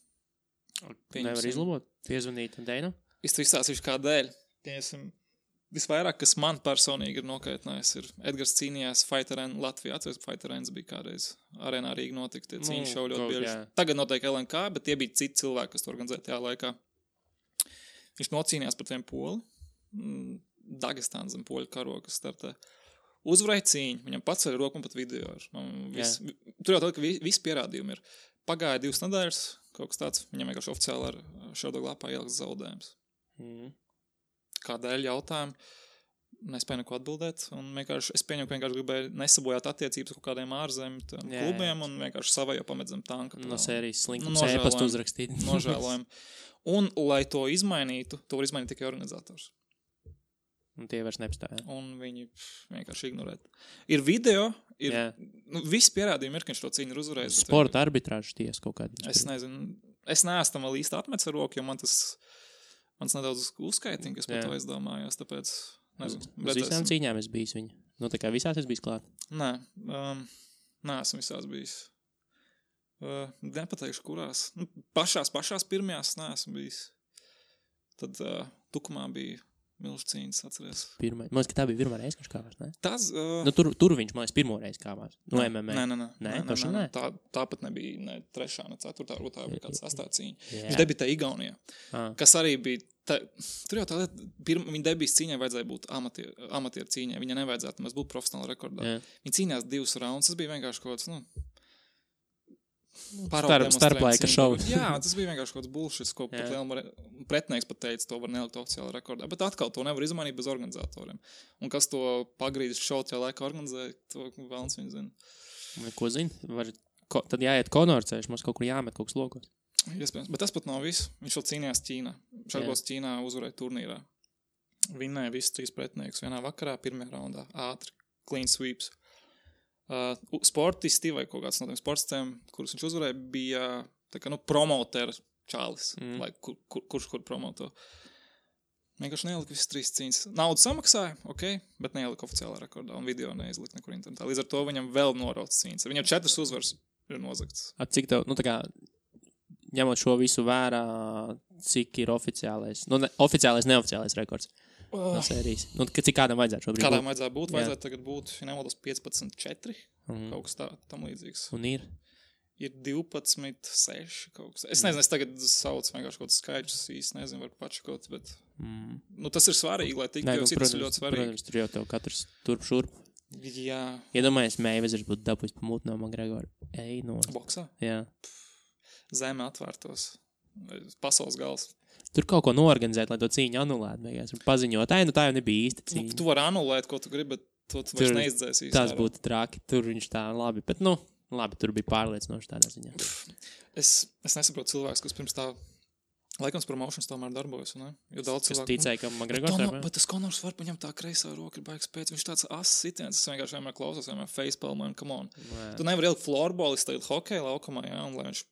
Nevar izlabot? Piezvanīt Deinu? Es to izstāstīšu kādēļ. Visvairāk, kas man personīgi ir nokaitinājis, ir Edgars cīnījās Fight Arena Latvijā. Atceries, Fight Arena bija kādreiz arēnā Rīga notika, tie cīņu šau ļoti bieži. Tagad notiek LNK, bet tie bija citi cilvēki, kas to organizēja tajā laikā. Viņš nocīnījās pret vienu poli, Dagestāna zem poļu karoga startē. Uzvarēja cīņu, viņam pats ar roku un pat video. Tur jau tā, ka visi pierādījumi ir. Pagāja 2 nedēļas, kaut kas tāds, viņam vienkārši oficiāli ar Sherdog lapā ieliks zaudējums. Kādēļ jautājumu, nespēju neko atbildēt, un es pieņemu, ka vienkārši gribēju nesabojāt attiecības kaut kādiem ārzemju klubiem, un vienkārši savai jau pamet zem tanka. No sērijas slinkums ēpastu uzrakstīt. Nožēlojam. Un, lai to izmainītu, to var izmainīt tikai organizators. Un tie vairs nepastāja. Un viņi vienkārši ignorē. Ir video, visi pierādījumi ir, ka viņš to cīņu ir uzvarējis. Sporta arbitrāžu tiesa kaut kādā. Es nezinu, es neesmu tam vēl īsti atmets ar roku, jo mans nedaudz uzskaitīja, kas par to aizdomājos, tāpēc, nezinu. Uz visām cīņām es bijis viņa. Tā kā visās es bijis klāt? Nē, neesmu visās bijis. Nepateikšu, kurās. Pašās pirmajās neesmu bijis. Tad Tukumā bija milžu cīņas, atceries. Man liekas, ka tā bija pirmā reize, viņš kāvās, ne? Tas... Tur viņš, man liekas, pirmo reizi kāvās. No MMA. Nē. Tāpat nebija ne 3. ne 4. varbūt tā bija kāds 8. cīņa. Viņš debitēja Igaunijā. Kas arī bija... Tur jau tā lieta, viņa debijas cīņai vajadzēja būt amatieru cīņai. Viņa nevajadzētu mēs būt profesionāli rekordā. Viņa cīnījās 2 raundus. Tas bija vienkārši kaut kāds, starplaika šovs. Jā, tas bija vienkārši kaut kāds bullshit, ko pat liela pretinieks pat teica, to var nelikt oficiāli rekordā. Bet atkal to nevar izmainīt bez organizatoriem. Un kas to pagrīdis šovu tajā laikā organizēja, to vēlns viņi zina. Ko zini? Tad jāiet konorceļš, mums kaut kur jāmet kaut kas lokos. Iespējams, bet tas pat nav viss. Viņš vēl cīnījās Ķīnā. Šarbos Ķīnā uzvarēja turnīrā. Vinnēja visus 3 pretinieks vienā vakarā, pirmajā raundā. Ātri, clean sweeps. Sportisti vai kaut kāds no tiem sportistiem, kurus viņš uzvarēja, bija tā kā, promotera čālis. Vai kurš promoto. Vienkārši neielika visas 3 cīņas. Naudu samaksāja, bet neielika oficiālā rekordā un video neizlika nekur internetā. Līdz ar to viņam vēl norauc cīņas. Viņam 4 uzvaras ir nozagts. Cik tev, tā kā, ņemot šo visu vērā, cik ir oficiālais, oficiālais, neoficiālais rekords no sērijas? Cik kādam vajadzētu šobrīd būt? Kādam vajadzētu būt? Vajadzētu tagad būt, ja nemaldos, 15-4, kaut kas tam līdzīgs. Un ir? Ir 12-6 kaut kas. Es nezinu, es tagad saucu vienkārši kaut kāds skaidrs, īsti nezinu, var pačakot, bet tas ir svarīgi, lai tiktu, jo citas ir ļoti svarīgi. Protams, tur jau tev katrs turp šurp. Jā. Iedomājies, Mayweathers būtu dabūjis pamūt no McGregora. Boksā? Jā. Zeme atvērtos. Pasaules gals. Tur kaut ko noorganizēt, lai to cīņu anulētu. Paziņot, tā jau nebija īsta cīņa. Tu vari anulēt, ko tu gribi, bet to tu vairs neizdzēsi. Tas būtu traki. Tur viņš tā labi, bet labi, tur bija pārliecinoši tādā ziņā. Es nesaprotu cilvēks, kas pirms tā laikams promotions tomēr darbojas, ne? Jo daudz cilvēku... Es ticēju, ka McGregors var... Bet tas Conors var paņemt tā kreisā roka, ir baigs pēc. Viņš tāds ass sitiens, es vienkārši vienmēr klausos, vienmēr facepalmu, come on. Tu nevar ielikt floorballis tagad hokeja laukumā, jā, un lai viņš...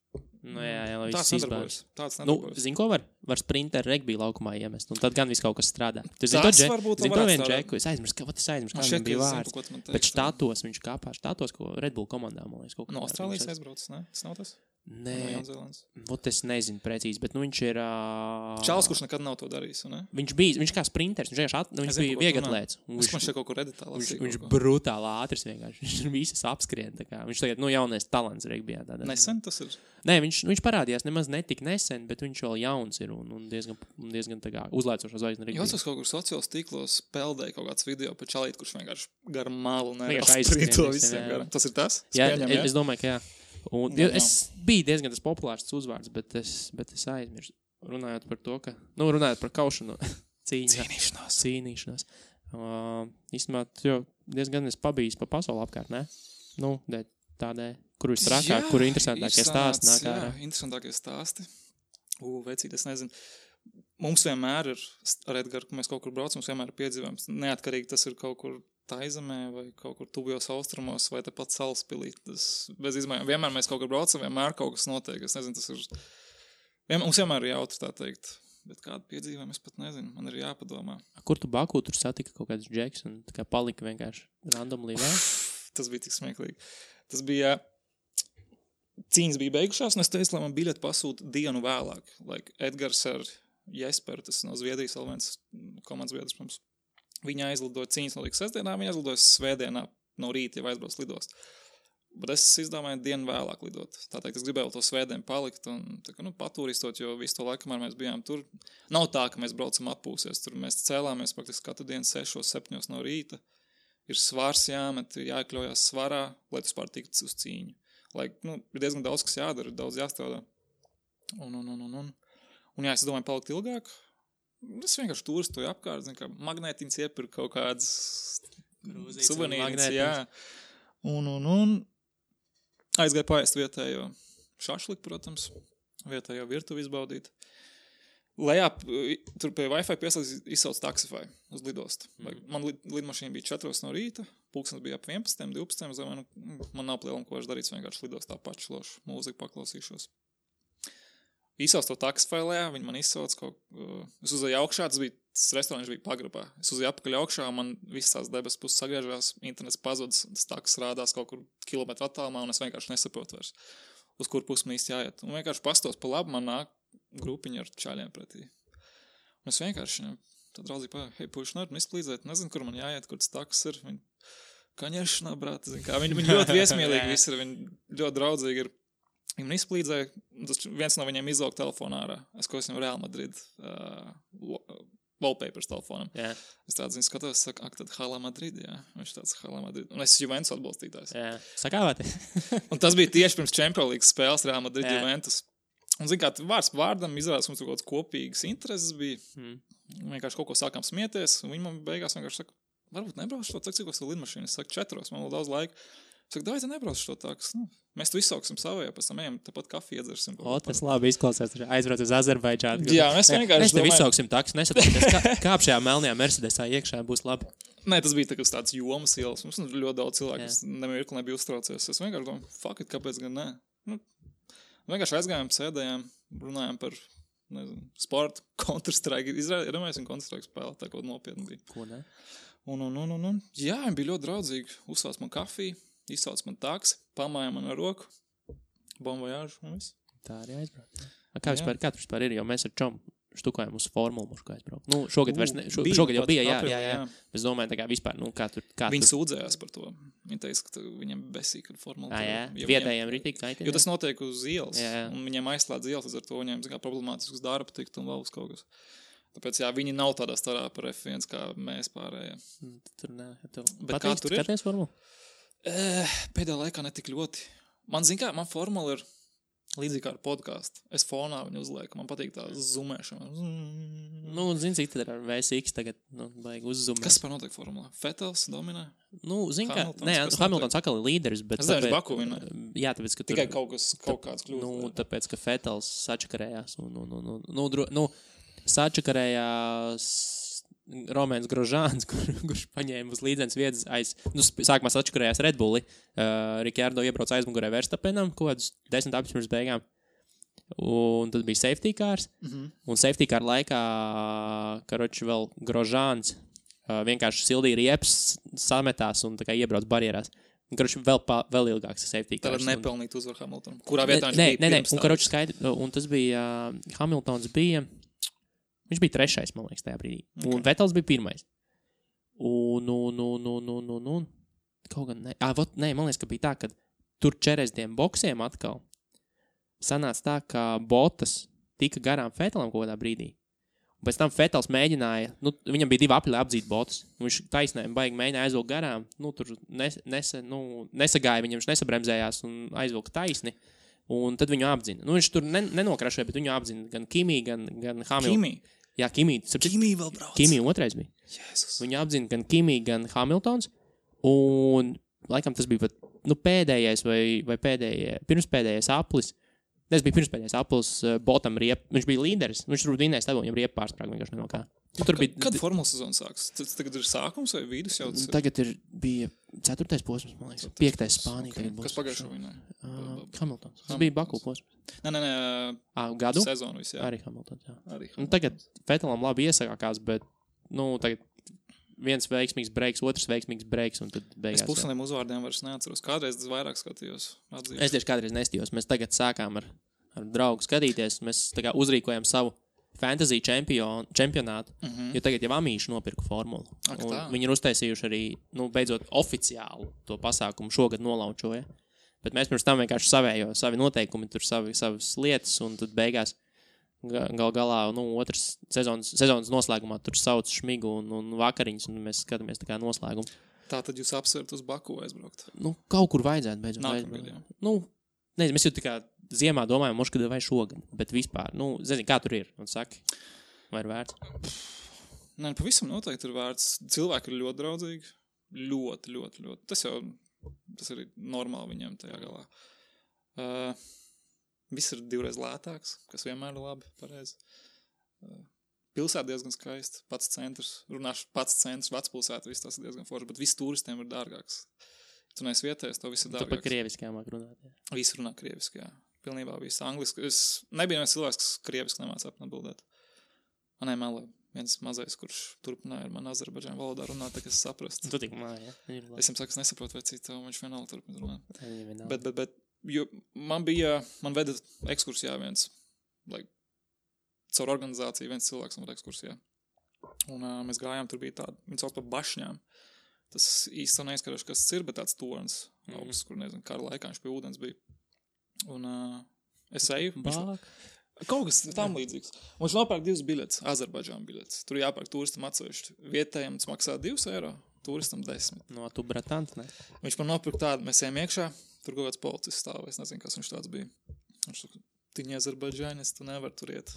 Jā, lai tāds nedarbojas. Tāds nedarbojas. Zini, ko var? Var sprinter regbija laukumā iemest, un tad gan viss kaut kas strādā. Tu zini to vienu džeku, es aizmirsu, kādam bija vārds. Bet štatos viņš kāpā, ko Red Bull komandā, man liekas, kaut kā. No Austrālijas aizbraucis, ne? Tas nav tas? Nē, es nezinu precīzi, bet viņš ir... Čāls, kurš nekad nav to darījis, ne? Viņš kā sprinters, viņš bija vieglatlēts. Es man šeit kaut kur reditā lasīju. Viņš brutāli ātrs vienkārši, viņš visas apskrien, tā kā. Viņš tagad, jaunais talants regbijā. Nesen tas ir? Nē, viņš parādījās nemaz netik nesen, bet viņš vēl jauns ir un diezgan tā kā uzlaicošā zvaigzne regbijā. Jūs kaut kur sociālos tīklos peldēja kaut kāds video par čalīti, kurš vienkārši gar malu sprīto visiem garam. Tas ir tas? Es domāju, ka jā. Es biju diezgan tas populārs uzvārds, bet es aizmirsu. Runājot par to, ka... runājot par kaušanu. Cīnīšanos. Īstenībā, diezgan es pabijis pa pasauli apkārt, ne? Tādēļ, kur ir trakāk, kur ir interesantākie stāsti nāk ārā. Jā, interesantākie stāsti. Vecīt, es nezinu. Mums vienmēr ir, ar Edgaru, kad mēs kaut kur braucam, mums vienmēr ir piedzīvojums. Neatkarīgi tas ir kaut kur Taizemē vai kaut kur tuvajos austrumos vai tepat Salaspilī. Tas bez izmaiņām. Vienmēr mēs kaut kur braucam, vienmēr kaut kas notiek. Es nezinu, tas ir... Mums vienmēr ir jautri, tā teikt. Bet kādu piedzīvojumu es pat nezinu. Man ir jāpadomā. Kur tu Baku tur satika kaut kāds džeks un tā kā palika vienkārši randomly vēl? Tas bija tik smieklīgi. Tas bija... Cīņas bija beigušās, un es teicu, lai man biļeti pasūta dienu vēlāk. Edgars ar Jesperu, tas no Zviedrijas vēl viens komandas biedrs mums. Viņa aizlidoja cīņas notika sestdienā, viņa aizlidoja svētdienā no rīta, jau aizbrauc lidost. Bet es izdomāju dienu vēlāk lidot. Tātad es gribēju to svētdienu palikt un patūristot, jo visu to laiku, kamēr mēs bijām tur, nav tā, ka mēs braucam atpūsies. Tur mēs cēlāmies praktiski katru dienu 6-7 no rīta. Ir svars jāmet, jāiekļaujās svarā, lai tu spār tiktu uz cīņu. Ir diezgan daudz, kas jādara, daudz jāstrādā. Un es domāju palikt ilgāk. Es vienkārši turistoju apkārt, zinu, kā magnētiņas iepirku kaut kādas suvenīriņas, jā. Un aizgāju paēst vietējo šašliku, protams, vietējo virtuvi izbaudīt. Lejā, tur pie Wi-Fi pieslēdz izsauc Taxify uz lidostu. Man lidmašīna bija 4 no rīta, pulkstens bija ap 11, 12, man nav lielam, ko es darīts, vienkārši lidost tā pačlošu, mūziku paklausīšos. Izsauc to Taxify lejā, viņi man izsauc es uzēju augšā, tas restorāns bija pagrabā. Es uzēju apakaļ augšā, man visas tās debes puses sagriežās, internets pazudis, tas taks rādās kaut kur kilometru attālumā, un es vienkārši nesaprotu vairs, uz kur pusi man īsti jāiet. Un vienkārši pastos pa labu, man nāk grupiņa ar čaļiem pretī. Un es vienkārši, tad draudzīgi pāju, hei, puiši, nevar man izplīdzēt, nezinu, kur man jāiet, kur tas taks ir. Viņi, kaņešanā, brāt, zin kā, viņi ļoti viesmīlīgi visi ir, viņi ļoti draudzīgi ir. Viņi man izplīdzēja, tas viens no viņiem izlauka telefonā ārā. Es viņam Real Madrid wallpapers telefonam. Yeah. Es tādu zinu, skatos, saku, tad Hala Madrid, jā. Viņš tāds Hala Madrid. Un es Juventus atbalstītājs. Jā, sakāvāti. Un tas bija tieši pirms Champions League spēles Real Madrid Juventus. Un zin kā, vārds vārdam izrādās, mums tur kaut kāds kopīgas intereses bija. Vienkārši kaut ko sākām smieties, un viņi man beigās vienkārši saka, varbūt nebraušu to, cik es to lidmašīnu. Es saku 4, man vēl daudz laika. Saka, dāj, nebrauc šo taksi. Nu, mēs tu izsauksim savajā, pēc tam ejam, tāpat kafiju iedzersim. Tas labi izklausās. Aizbrauc uz Azerbaidžānu. Jā, mēs vienkārši mēs tev izsauksim taksi, nesatoties, kāp šajā melnajā Mercedesā iekšā būs labi. Nē, tas bija tāds jomas ielas. Mums ļoti daudz cilvēku, kas nemirkli nebija uztraucies. Es vienkārši domāju, fuck it, kāpēc gan nē. Nu, vienkārši aizgājām, sēdējām, runājām par, nezinu, sportu, Counter-Strike. Iedomājasim Counter-Strike spēlēt, tā kaut nopietni bija. Ko ne? Un. Jā, viņi bija ļoti draudzīgi. Uzsauc man kafiju. Izsauc man taksi, pamāja man ar roku, bon voyage un viss. Tā arī aizbrauc. Kā tu vispār ir, jo mēs ar čom štukājam uz formulu mušku aizbraukt. Nu, šogad vairs ne, šogad jau bija, jā. Es domāju, tā kā vispār, nu, kā tur. Viņi sūdzējās par to. Viņi teica, ka viņiem besīk ar formulu. Jā, vietējiem ritīgi kaitē. Jo tas notiek uz ielas, un viņiem aizslēdz ielas, ar to viņiem, kā problemātisks darba tikt un vēl uz kaut kas. Tāpēc, jā, viņi nav tādā starā par F1, kā mēs pārējie. Tur nē. Bet kā tur ir? Skaties formulu? Pēdējā laikā netik ļoti. Man formula ir līdzīgi kā ar podcastu. Es fonā viņu uzlieku. Man patīk tā zoomēšana. Nu, zini, cik tad ar VSX tagad, vajag uzzumēt. Kas par notiek formulā? Fettels dominē? Nu, zini, kā, Hamiltons atkal ir līderis, bet... Es zinu, Baku vinē. Jā, tāpēc, ka tur... Tikai kaut kāds kļūst. Nu, tāpēc, ka Fettels sačakarējās. Sačakarējās... Romēns Grožāns, kurš paņēma uz līdzenas vietas sākumā sačakarējās Red Bulli. Rikārdo iebrauc aizmugurē Verstapenam, kaut kādus 10 apis pirms beigām. Un tad bija safety cars. Un safety car laikā, karoči vēl Grožāns vienkārši sildīja riepas, sametās un tā kā iebrauc barjerās. Un karoči vēl ilgāks safety cars. Tad nepelnīt uzvar Hamiltonam. Kurā vietā viņš bija pirms tā? Un karoči skaidri, un tas bija, Hamiltons bija... Viņš bija 3. man liekas, tajā brīdī. Okay. Un Vettels bija 1. Un kaut gan ne. Man liekas, ka bija tā, ka tur 40 boksiem atkal sanāca tā, ka Bottas tika garām Vettelam kaut kādā brīdī. Un pēc tam Vettels mēģināja, viņam bija 2 apļi apdzīt Bottas. Viņš taisnēm baigi mēģināja aizvilkt garām. Tur nesagāja viņam, viņš nesabremzējās un aizvilka taisni. Un tad viņu apdzina. Viņš tur nenokrašoja, bet viņu apdzina gan Kimi, gan Hamilton. Kimi? Jā, Kimi. Kimi vēl brauc. Kimi 2. bija. Jēzus. Viņu apdzina gan Kimi, gan Hamiltons. Un laikam tas bija pēdējais vai pirmspēdējais aplis. Tas bija pirmspēdējais aplis Botam riep. Viņš bija līderis. Viņš tur vinēja stāvot, viņam riepa pārsprāga vienkārši no kā. Kad formulas sezona sāks? Tas tagad ir sākums vai vidus jau? Tagad bija 4. posms, man liekas. 5. Spānija okay. tagad būs. Kas pagājušo vinē? Hamiltons. Tas bija Baku posms. Nē. Gadu? Sezonu viss, jā. Arī Hamiltons, jā. Tagad Vettelam labi iesākās, bet, tagad viens veiksmīgs breiks, otrs veiksmīgs breiks, un tad beigās. Es pusniem uzvārdiem vairs neatceros. Kādreiz es vairāk skatījos. Atzīšu. Es tieši kādreiz nestījos. Mēs tagad sākām ar draugu skatīties. Mēs tā kā uzrīkojam savu fantasy čempionātu, jo tagad jau Amīši nopirka formulu. Viņi ir uztaisījuši arī, beidzot oficiālu to pasākumu šogad nolaučoja. Bet mēs pirms tam vienkārši savi noteikumi, tur savas lietas, un tad beigās galā, otrs sezonas noslēgumā tur sauc šmigu un vakariņas, un mēs skatāmies tā kā noslēgumu. Tā tad jūs apsvērt uz Baku aizbraukt? Kaut kur vajadzētu beidzot. Nākamgad, jā. Nezinu, mēs jau tā kā ziemā domājam, kad vai šogad, bet vispār, zini, kā tur ir, un saki, vai ir vērts? Nē, pavisam noteikti ir vērts. Cilvēki ir ļoti draudzīgi, ļoti. Tas ir normāli viņiem tajā galā. Viss ir 2 reizes lētāks, kas vienmēr ir labi, pareizi. Pilsēta diezgan skaista, pats centrs, vecpilsēta, viss tas ir diezgan forši, bet viss turistiem ir dārgāks. Tu neesi vietējis, to viss ir dārgāks. Tu pa krieviski māk runāt, jā. Visi runā krieviski, jā. Pilnībā viss angliski. Es nebija viens cilvēks, kas krieviski nemāca atbildēt. Manai melē viens mazais, kurš turpināja ar mani Azerbaidžāņu valodā runāt, tā kā es saprastu. Tu tik māja, jā. Es viņam saku, es nesaprotu, vai cita, un viņš vienalga turpina runāt. Bet, jo man veda ekskursijā viens, caur organizāciju viens cilvēks man veda ekskursijā. Un mēs gājām, tur bija tāda, viņi sauc par bašņām. Tas īsti neizskaroši, kas tas ir, bet tāds tornis augsts, kur, nezinu, kara laikā viņš pie ūdens bija. Un es eju. Kaut kas tam līdzīgs. Un viņš nopērk 2 biļetes, Azerbaidžānu biļetes. Tur jāpērk turistam atsevišķi. Vietējiem tas maksā 2 eiro, turistam 10. No tu bratants, ne? Viņš man nopirka tādu, mēs ejam iekšā, tur kaut kāds policists stāv, es nezinu, kas viņš tāds bija. Viņš saka, tiņi Azerbaidžānis, tu nevar tur iet.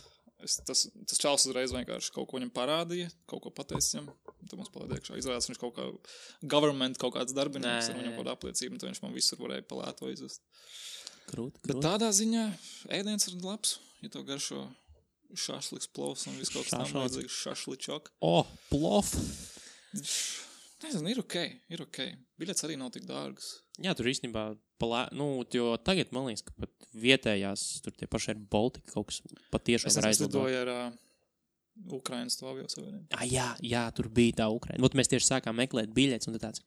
Tas čals uzreiz vienkārši kaut ko viņam parādīja, kaut ko pateicis viņam. Tad mums palaid iekšā. Izrādās, viņš kaut kā government kaut kāds darbinieks, ar viņam kaut kādu apliecību, un tad viņš man visur varēja palēto izvest. Krūt. Bet tādā ziņā ēdiens ir labs, ja to garšo šašliks, plovs un viss kaut kas tam vajadzīgs šašličok. Plov! Nezinu, ir ok. Biļets arī nav tik dārgas. Jā, tur īstenībā, jo tagad man liekas, ka pat vietējās, tur tie paši ir Baltika kaut kas patiešām var aizlidot. Es lidoju ar Ukrainas to aviosavienību. Jā, tur bija tā Ukraina. Ot mēs tieši sākām meklēt biļetes, un tad tāds...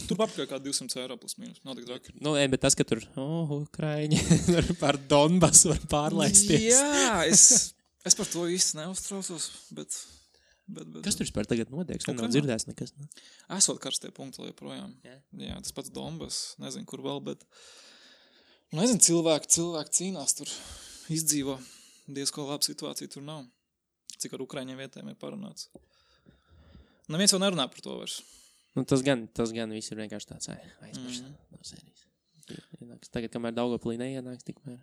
Tur papakaļ kā 200 eiro plus mīnus, nav tik draki. Bet tas, ka tur, Ukraiņi, par Donbasu var pārlaisties. Jā, es par to īsti neuztraucos, bet... Kas tur vispār tagad notiek? Nav dzirdēts nekas. Ne? Esot karstie punkti joprojām. Jā, tas pats Donbas, nezinu, kur vēl, bet... Nezinu, cilvēki cīnās tur, izdzīvo. Diezko laba situācija tur nav. Cik ar Ukraiņiem vietēm ir parunāts. Neviens vēl nerunā par to vairs. Tas gan viss ir vienkārši tāds aizmirst no sērijas. Tagad, kamēr Daugavpilī neienāks, tikmēr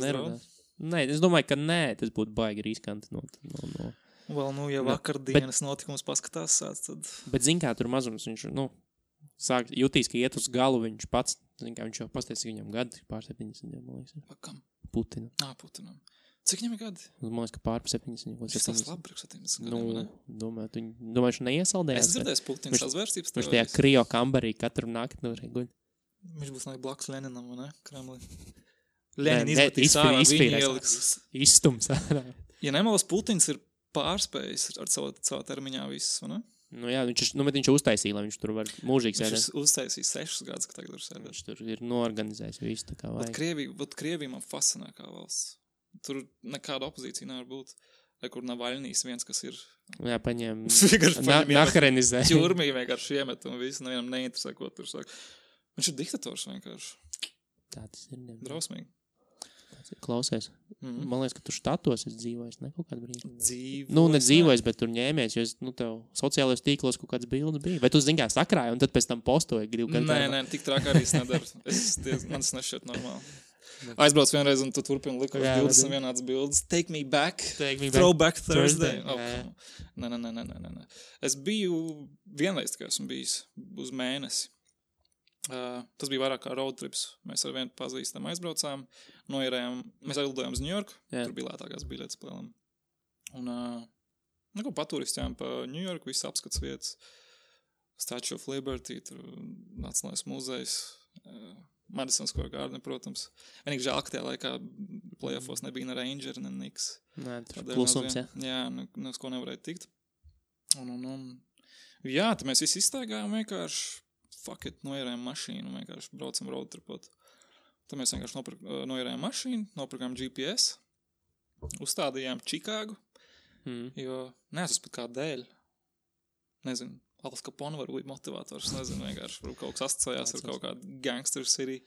nerunās. Nē, es domāju, ka nē, tas būtu baigi riskanti no. Vēl, ja vakardienas notikums paskatās sāc, tad... Bet zin kā, tur mazums viņš, jutīs, ka iet uz galu viņš pats, zin kā, viņš jau pasties, ka viņam gadi pār 70, man liekas. Pakam? Putinam. Putinam. Cik viņam ir gadi? Man liekas, ka pār 70. Šis tās labi priekš 70 gadiem, ne? Domāju, viņš neiesaldējās. Es dzirdēju Putins sazvērstības teorijas. Viņš tajā kryo kambarī katru nakti guļ. Viņš būs blakus Leninam, ne? Kremlī. Lenin izmetīs ārā, viņi ieliks. Izstums ārā. Ja nemalas, Putins ir pārspējis ar savā termiņā viss, vai ne? Jā, viņš uztaisīja, lai viņš tur var mūžīgi sēdēt. Viņš uztaisīja 6 gadus, ka tagad var sēdēt. Viņš tur ir noorganizējis visu tā kā vajag. Krievija man fascinē kā valsts. Tur nekāda opozīcija nevar būt. Vai kur Navaļnīs viens, kas ir... Jā, paņem... Naharenizē. Ķurmī vienkārši iemet un visu, nevienam neinteresē, ko tur saka. Viņš ir diktators vienkārši. Tā tas ir. Drausmīgi. Klausies. Man liekas, ka tu štatos esi dzīvojis, ne kaut kādu brīdi. Dzīvojis. Nedzīvojis, bet tur ņēmies, jo tev sociālajos tīklos kaut kāds bildes bija. Vai tu zini, kā sakrāji, un tad pēc tam postoji gribu kādā? Nē, tik trāk arī es nedaru. Man tas nešķiet normāli. Aizbrauc vienreiz, un tu turpini likos 20 vienāds bildes. Take me back. Throwback Thursday. Nē. Es biju vienreiz, tikai esmu bijis uz mēnesi. Tas bija vairāk kā road trips. Mēs ar vienu pazīstam aizbraucām, noierējām, mēs aizlidojām uz New York, tur bija lētākās biļetes plēlam. Un paturistījām pa New York, visu apskats vietas, Statue of Liberty, tur Nacionālais muzejs, Madison Square Garden, protams. Vienīgi žēl, ka tajā laikā playoffos nebija ne Ranger, ne Knicks. Nē, klusums, jā. Jā, nes ko nevarēja tikt. Jā, tad mēs visi izstaigājām vienkārši. Fuck it, noierējām mašīnu, vienkārši braucam road tripot. Tad mēs vienkārši noierējām mašīnu, nopirkām GPS, uzstādījām Čikāgu, jo neesmu pat kā dēļ. Nezinu, Al Capone var būt motivators, nezinu, vienkārši kaut kas asociējās ar kaut kādu gangster city.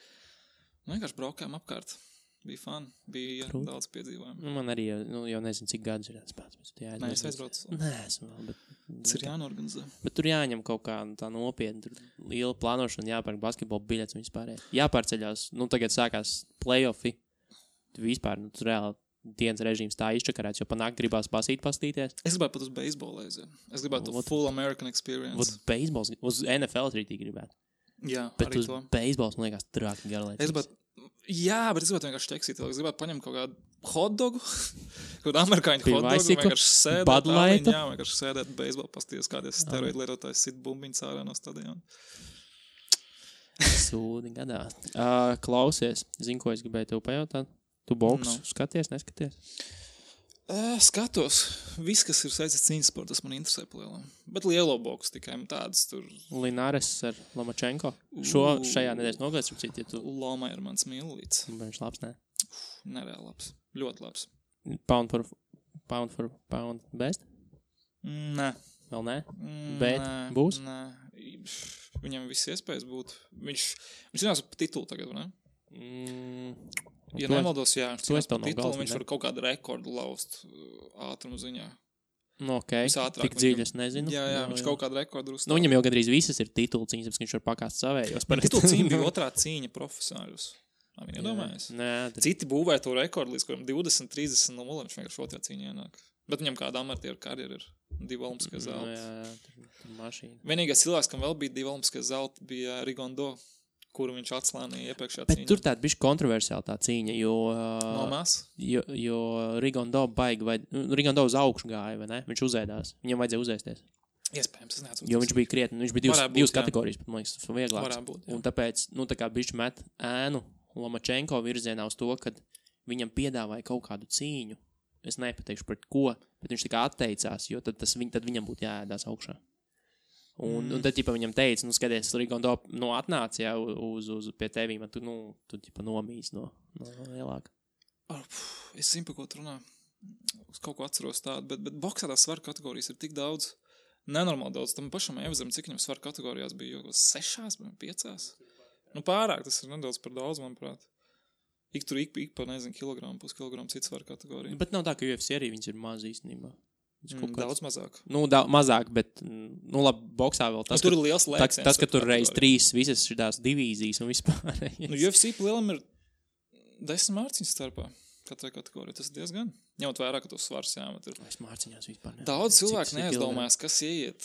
Vienkārši braukājām apkārt. Bija fun, bija daudz piedzīvojumu. Man arī, jau nezinu, cik gadus ir atspēc. Nē, es aizbraucu. Nē, esmu vēl, bet... Tas ir jānorganizē. Bet tur jāņem kaut kā tā nopietni, tur liela plānošana, jāpērk basketbola biļets un vispārēj. Jāpārceļās, tagad sākās play-offi. Vispār, tur reāli dienas režīms tā izčakarēts, jo panāk gribās pastīties. Es gribētu pat uz beisbolu aiziet. Es gribētu full American experience. Beisbols, uz NFL rītī gribētu. Jā, bet arī to. Bet uz beisbols, man liekas, trāki garlaicīgs. Jā, bet es gribētu vienkārši čeksīt. Es gribētu paņemt kaut kādu hotdogu, kaut kādu amerikāņu hotdogu, vienkārši sēdēt, vienkārši sēdēt beisbolu, pastīties kādies steroidu lietotājs sit bumbiņas ārā no stadiona. Sūdi gadā. Klausies, zini, ko es gribēju tev pajautāt? Tu boksu skaties, neskaties? Skatos. Viss, kas ir saistīts cīņas sports, tas man interesē palielam. Bet lielo boksu tikai tādas tur. Linares ar Lomachenko. Šajā nedēļas nogalēs, ja tu... Loma ir mans mīlīts. Viņš labs, ne? Nereāli labs. Ļoti labs. Pound for pound best? Nē. Vēl nē? Bet būs? Nē. Viņam viss iespējas būt. Viņš zinās par titulu tagad, ne? Ja nemaldos, jā, viņš var kaut kādu rekordu laust ātrumu ziņā. Tik dziļi es nezinu. Jā, viņš kaut kādu rekordu uzstāv. Viņam jau gandrīz visas ir titulu cīņas, bet viņš var pakāst savējos. Titulu cīņa bija otrā cīņa profesionāļus. Viņi iedomājas. Citi būvēja to rekordu līdz kuram 20, 30, 0, viņš vienkārši otrā cīņā ienāk. Bet viņam kāda amatieru karjera ir. 2 olimpiskie zelti. Tur mašīna. Vienīgais cilvēks, kam vēl bija 2 olimpiskie zelti, bija Rigondo, kuru viņš atslānīja iepriekšējā Bet cīņā. tur tāda bišķi kontroversiāla tā cīņa, jo Rigondo Rigondo uz augšu gāja, vai ne? Viņš uzēdās. Viņam vajadzēja uzēsties. Iespējams, es neatceros. Jo viņš bija krietni, viņš bija divas kategorijas, bet man liekas, tas vieglāks. Varētu būt, jā. Un tāpēc, tā kā bišķi met ēnu Lomačenko virzienā uz to, kad viņam piedāvāja kaut kādu cīņu. Es nepateikšu pret ko, bet viņš tā kā atteicās, jo tad viņam būtu jāēdās augšā. Un tad, viņam teica, skaties, Rigondo, atnāc, jā, uz pie tevīm, un tu nomīs no lielāka. Es zinu, par ko tu runā. Es kaut ko atceros tādu, bet boksā tās svaru kategorijas ir tik daudz, nenormāli daudz. Tam pašam Evzam, cik viņam svaru kategorijās bija, jau 6, 5? Pārāk, tas ir nedaudz par daudz, manuprāt. Ik par, nezinu, kilogramu, puskilogramu citu svaru kategoriju. Bet nav tā, ka UFC arī viņas ir maz īstenībā. Daudz mazāk. Mazāk, bet, labi, boksā vēl tas, tur ir liels lēciens. Tas, ka tur reiz 3 visas šitās divīzijas un vispār. UFC lielam ir 10 mārciņas starpā katrai kategorijai. Tas ir diezgan. Ņemot vērā, ka tos svars jāmet ir. Es mārciņās vispār. Daudz cilvēku neaizdomājās, kas ieiet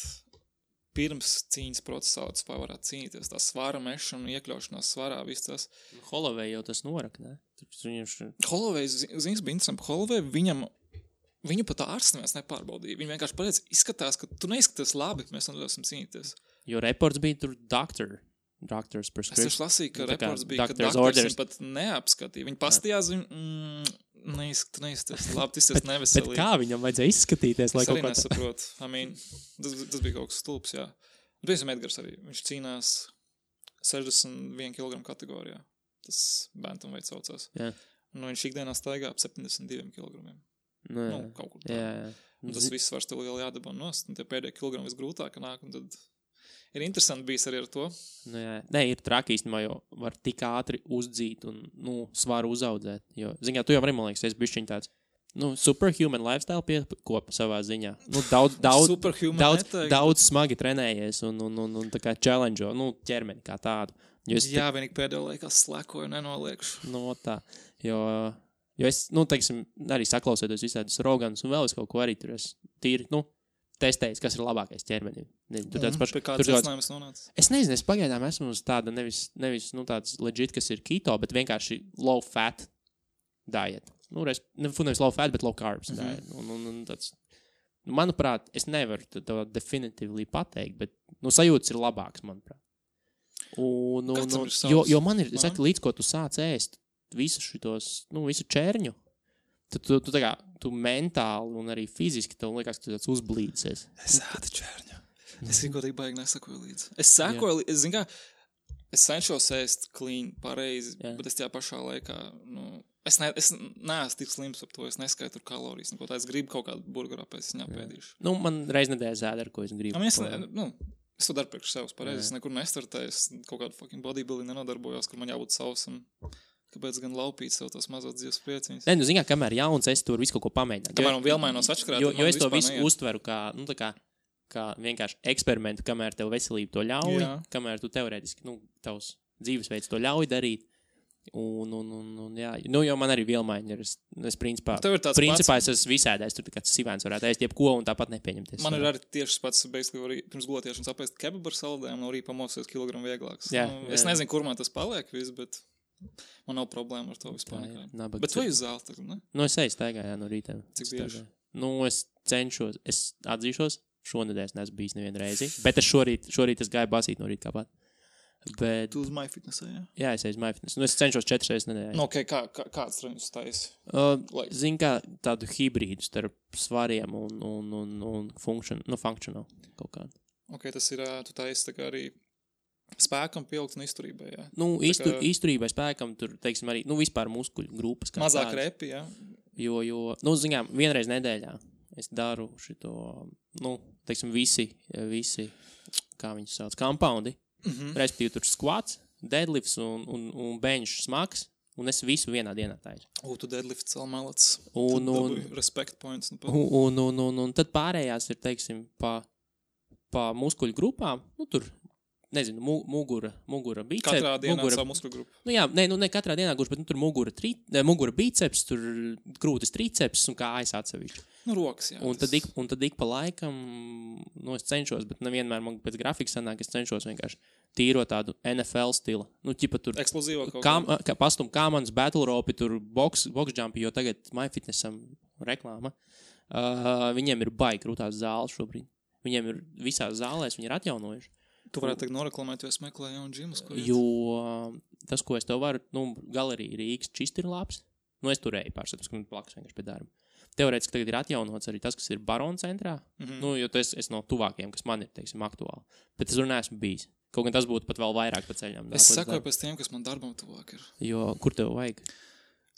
pirms cīņas procesā, tas varētu cīnīties. Tā svara mešana un iekļaušanās svarā, viss tas. Holloway jau tas norak, ne? Holloway, zins, bija interesanti. Holloway, viņu pat ārsts neviens nepārbaudīja. Viņi vienkārši pateica, izskatās, ka tu neizskaties labi, mēs nedosim cīnīties. Jo reports bija tur doctor's prescription. Es taču lasīju, ka reports bija, ka doktors viņu pat neapskatīja. Viņi pastījās, neizskaties labi, tas ir neveselīgi. Bet kā viņam vajadzēja izskatīties? Es arī nesaprotu. Tas bija kaut kas stulbs, jā. Piemēram, Edgars arī. Viņš cīnās 61 kg kategorijā. Tas bantamweight saucās. Jā. Viņš ikdienā staigā ap 72 kg. Kaut kur tā. Jā. Un tas viss vairs tev lieli jādabā nost, un tie pēdējie kilogrami visgrūtāk nāk, un tad ir interesanti bijis arī ar to. Nē, ir traki īstenībā, jo var tik ātri uzdzīt un, svaru uzaudzēt. Jo, ziņā, tu jau arī, man liekas, esi bišķiņ tāds, superhuman lifestyle piekopa savā ziņā. Daudz smagi trenējies un tā kā challenge, ķermeni kā tādu. Jā, vienīgi pēdējā laikā slekoju, nenoliekšu. Tā, jo es, teiksim, arī saklausētos visādus Roganus un vēl es kaut ko arī tur es tīri, testējis, kas ir labākais ķermenim. Pie kādas secinājums nonāca? Es nezinu, es pagaidām esmu uz tāda nevis tāds legit, kas ir keto, bet vienkārši low fat diet. Nevis low fat, bet low carbs diet. Un tāds, manuprāt, es nevaru to definitīvi pateikt, bet sajūtas ir labāks, manuprāt. Jo man ir, līdz ko tu sāc ēst visu šitos, visu čērņu, tad tu mentāli un arī fiziski tev liekas, ka tu tāds uzblīdzies. Es ēdu čērņu. Es vienkārši baigi nesakoju līdzi. Es zinu kā, es cenšos ēst clean, pareizi, bet es tajā pašā laikā, es neesmu tik slims ap to, es neskaitu kalorijas, neko tā, es gribu kaut kādu burgeru pēc, es ņapēdīšu. Man reiz nedēļas ēd, ar ko es gribu. Es to daru priekš sevis pareizi, es nekur nestartēju, es kaut kādu fucking bodybuilding nenodarbojos, kur man jābūt sausam. Kāpēc gan laupīt sev tos mazos dzīves prieciņus? Nē, zini, kamēr jauns, es tur visu kaut ko pamēģināju. Kamēr un vielmainos atšķirāt, jo es to visu uztveru kā vienkārši eksperimentu, kamēr tev veselība to ļauj, kamēr tu teorētiski, tavs dzīvesveids to ļauj darīt. Jo man arī vielmaiņa ir, es principā es esmu visādais, tur kāds sivēns varētu ēst jebko un tāpat nepieņemties. Man ir arī tieši pats, basically, pirms gulētiešanas apēst kebabu ar saldēm, no rīta pamosties kilogramu vieglāks. Es nezinu, kur man tas paliek viss, bet man nav problēma ar to vispār. Bet tu uz zāli tagad, ne? Es eju staigā, no rīta. Cik bieži? Es cenšos, es atzīšos, šonedēļ es neesmu bijis nevienu reizi, bet es šorīt es gāju basīt no rīta kāpāt. Bet... Tu uz MyFitnessā, jā? Jā, es eju uz MyFitness. Es cenšos 4 reizes nedēļā. Kāds treniņus taisi? Zinu, kā tādu hibrīdu starp svariem un functional kaut kādu. Tas ir, tu taisi tā kā arī spēkam pieaugt un izturībai, jā? Izturībai, spēkam, tur, teiksim, arī, vispār muskuļu grupas. Mazāk repi, jā? Jo, zinām, vienreiz nedēļā es daru šito, teiksim, visi, kā viņus sauc, compoundi. Respektīvi tur squats, deadlifts un bench smags, un es visu vienā dienā taisu. Tu deadlifts vēl malats. Respect points. Un tad pārējās ir, teiksim, pa muskuļu grupām, tur nezinu, mugura biceps. Katrā dienā savu muskulu grupu. Nu jā, ne katrā dienā gluži, bet tur mugura biceps, tur krūtis triceps un kājas atsevišķi. Nu, rokas, jā. Un tad ik pa laikam, es cenšos, bet nevienmēr man pēc grafika sanāk, es cenšos vienkārši tīro tādu NFL stila. Nu, ķipa tur eksplozīvo kaut kā. Pastum kāmanas, battle ropi, tur box jumpi, jo tagad MyFitnessam reklāma. Viņiem ir baigi krūtās zāles šobrīd. Viņiem ir visās zālēs, viņi ir atjaunojuši. Tu varētu teikt noreklamēt, jo es meklēju jaunu džimus, ko jo tas, ko es tev varu, galerija Rīgas čist ir labs. Es turēju pārstāvis, ka man plakas vienkārši pie darba. Teorētiski tagad ir atjaunots arī tas, kas ir Barona centrā. Jo tas es no tuvākiem, kas man ir, teiksim, aktuāli. Bet es tur neesmu bijis. Kaut gan tas būtu pat vēl vairāk pa ceļām. Es sakoju pēc tiem, kas man darbam tuvāk ir. Jo, kur tev vajag?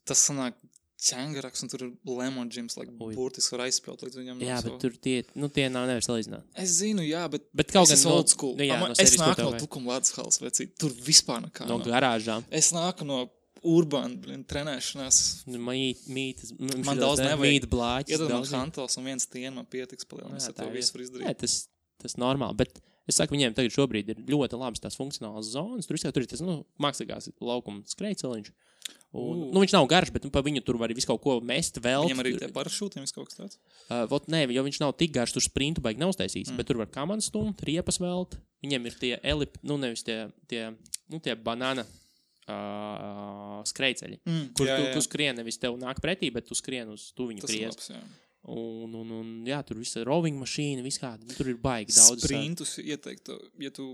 Tas sanāk ķengaraks, un tur ir lemon gyms, burtiski var aizspēlt līdz viņam. Jā, bet tur tie nav nevar salīdzināt. Es zinu, jā, bet kaut gan old school. Es nāku no Tukuma Ledus halas, vecīt. Tur vispār nekā. No garāžām. Es nāku no urbāna trenēšanās. Man daudz nevajag. Mīt blāķis. Iedod man hantels un viens tien man pietiks palielināt. Es to visu var izdarīt. Jā, tas normāli, bet es saku, viņiem tagad šobrīd ir ļoti labas tās funkcionālas zonas. Tur ir tas, mākslīgās laukuma skrejceliņš. Viņš nav garš, bet pa viņu tur var visu kaut ko mest vēl. Viņam arī tie parašūti, viss kaut kas tāds? Jo viņš nav tik garš, tur sprintu baigi nav uztaisīts, bet tur var kamanu stumt, riepas velt. Viņiem ir tie nevis tie banana skrejceļi, kur tu skrien, nevis tev nāk pretī, bet tu skrien uz tuviņu priest. Jā, tur visa roving mašīna, viss kāda, tur ir baigi daudz. Sprintus ieteiktu, ja tu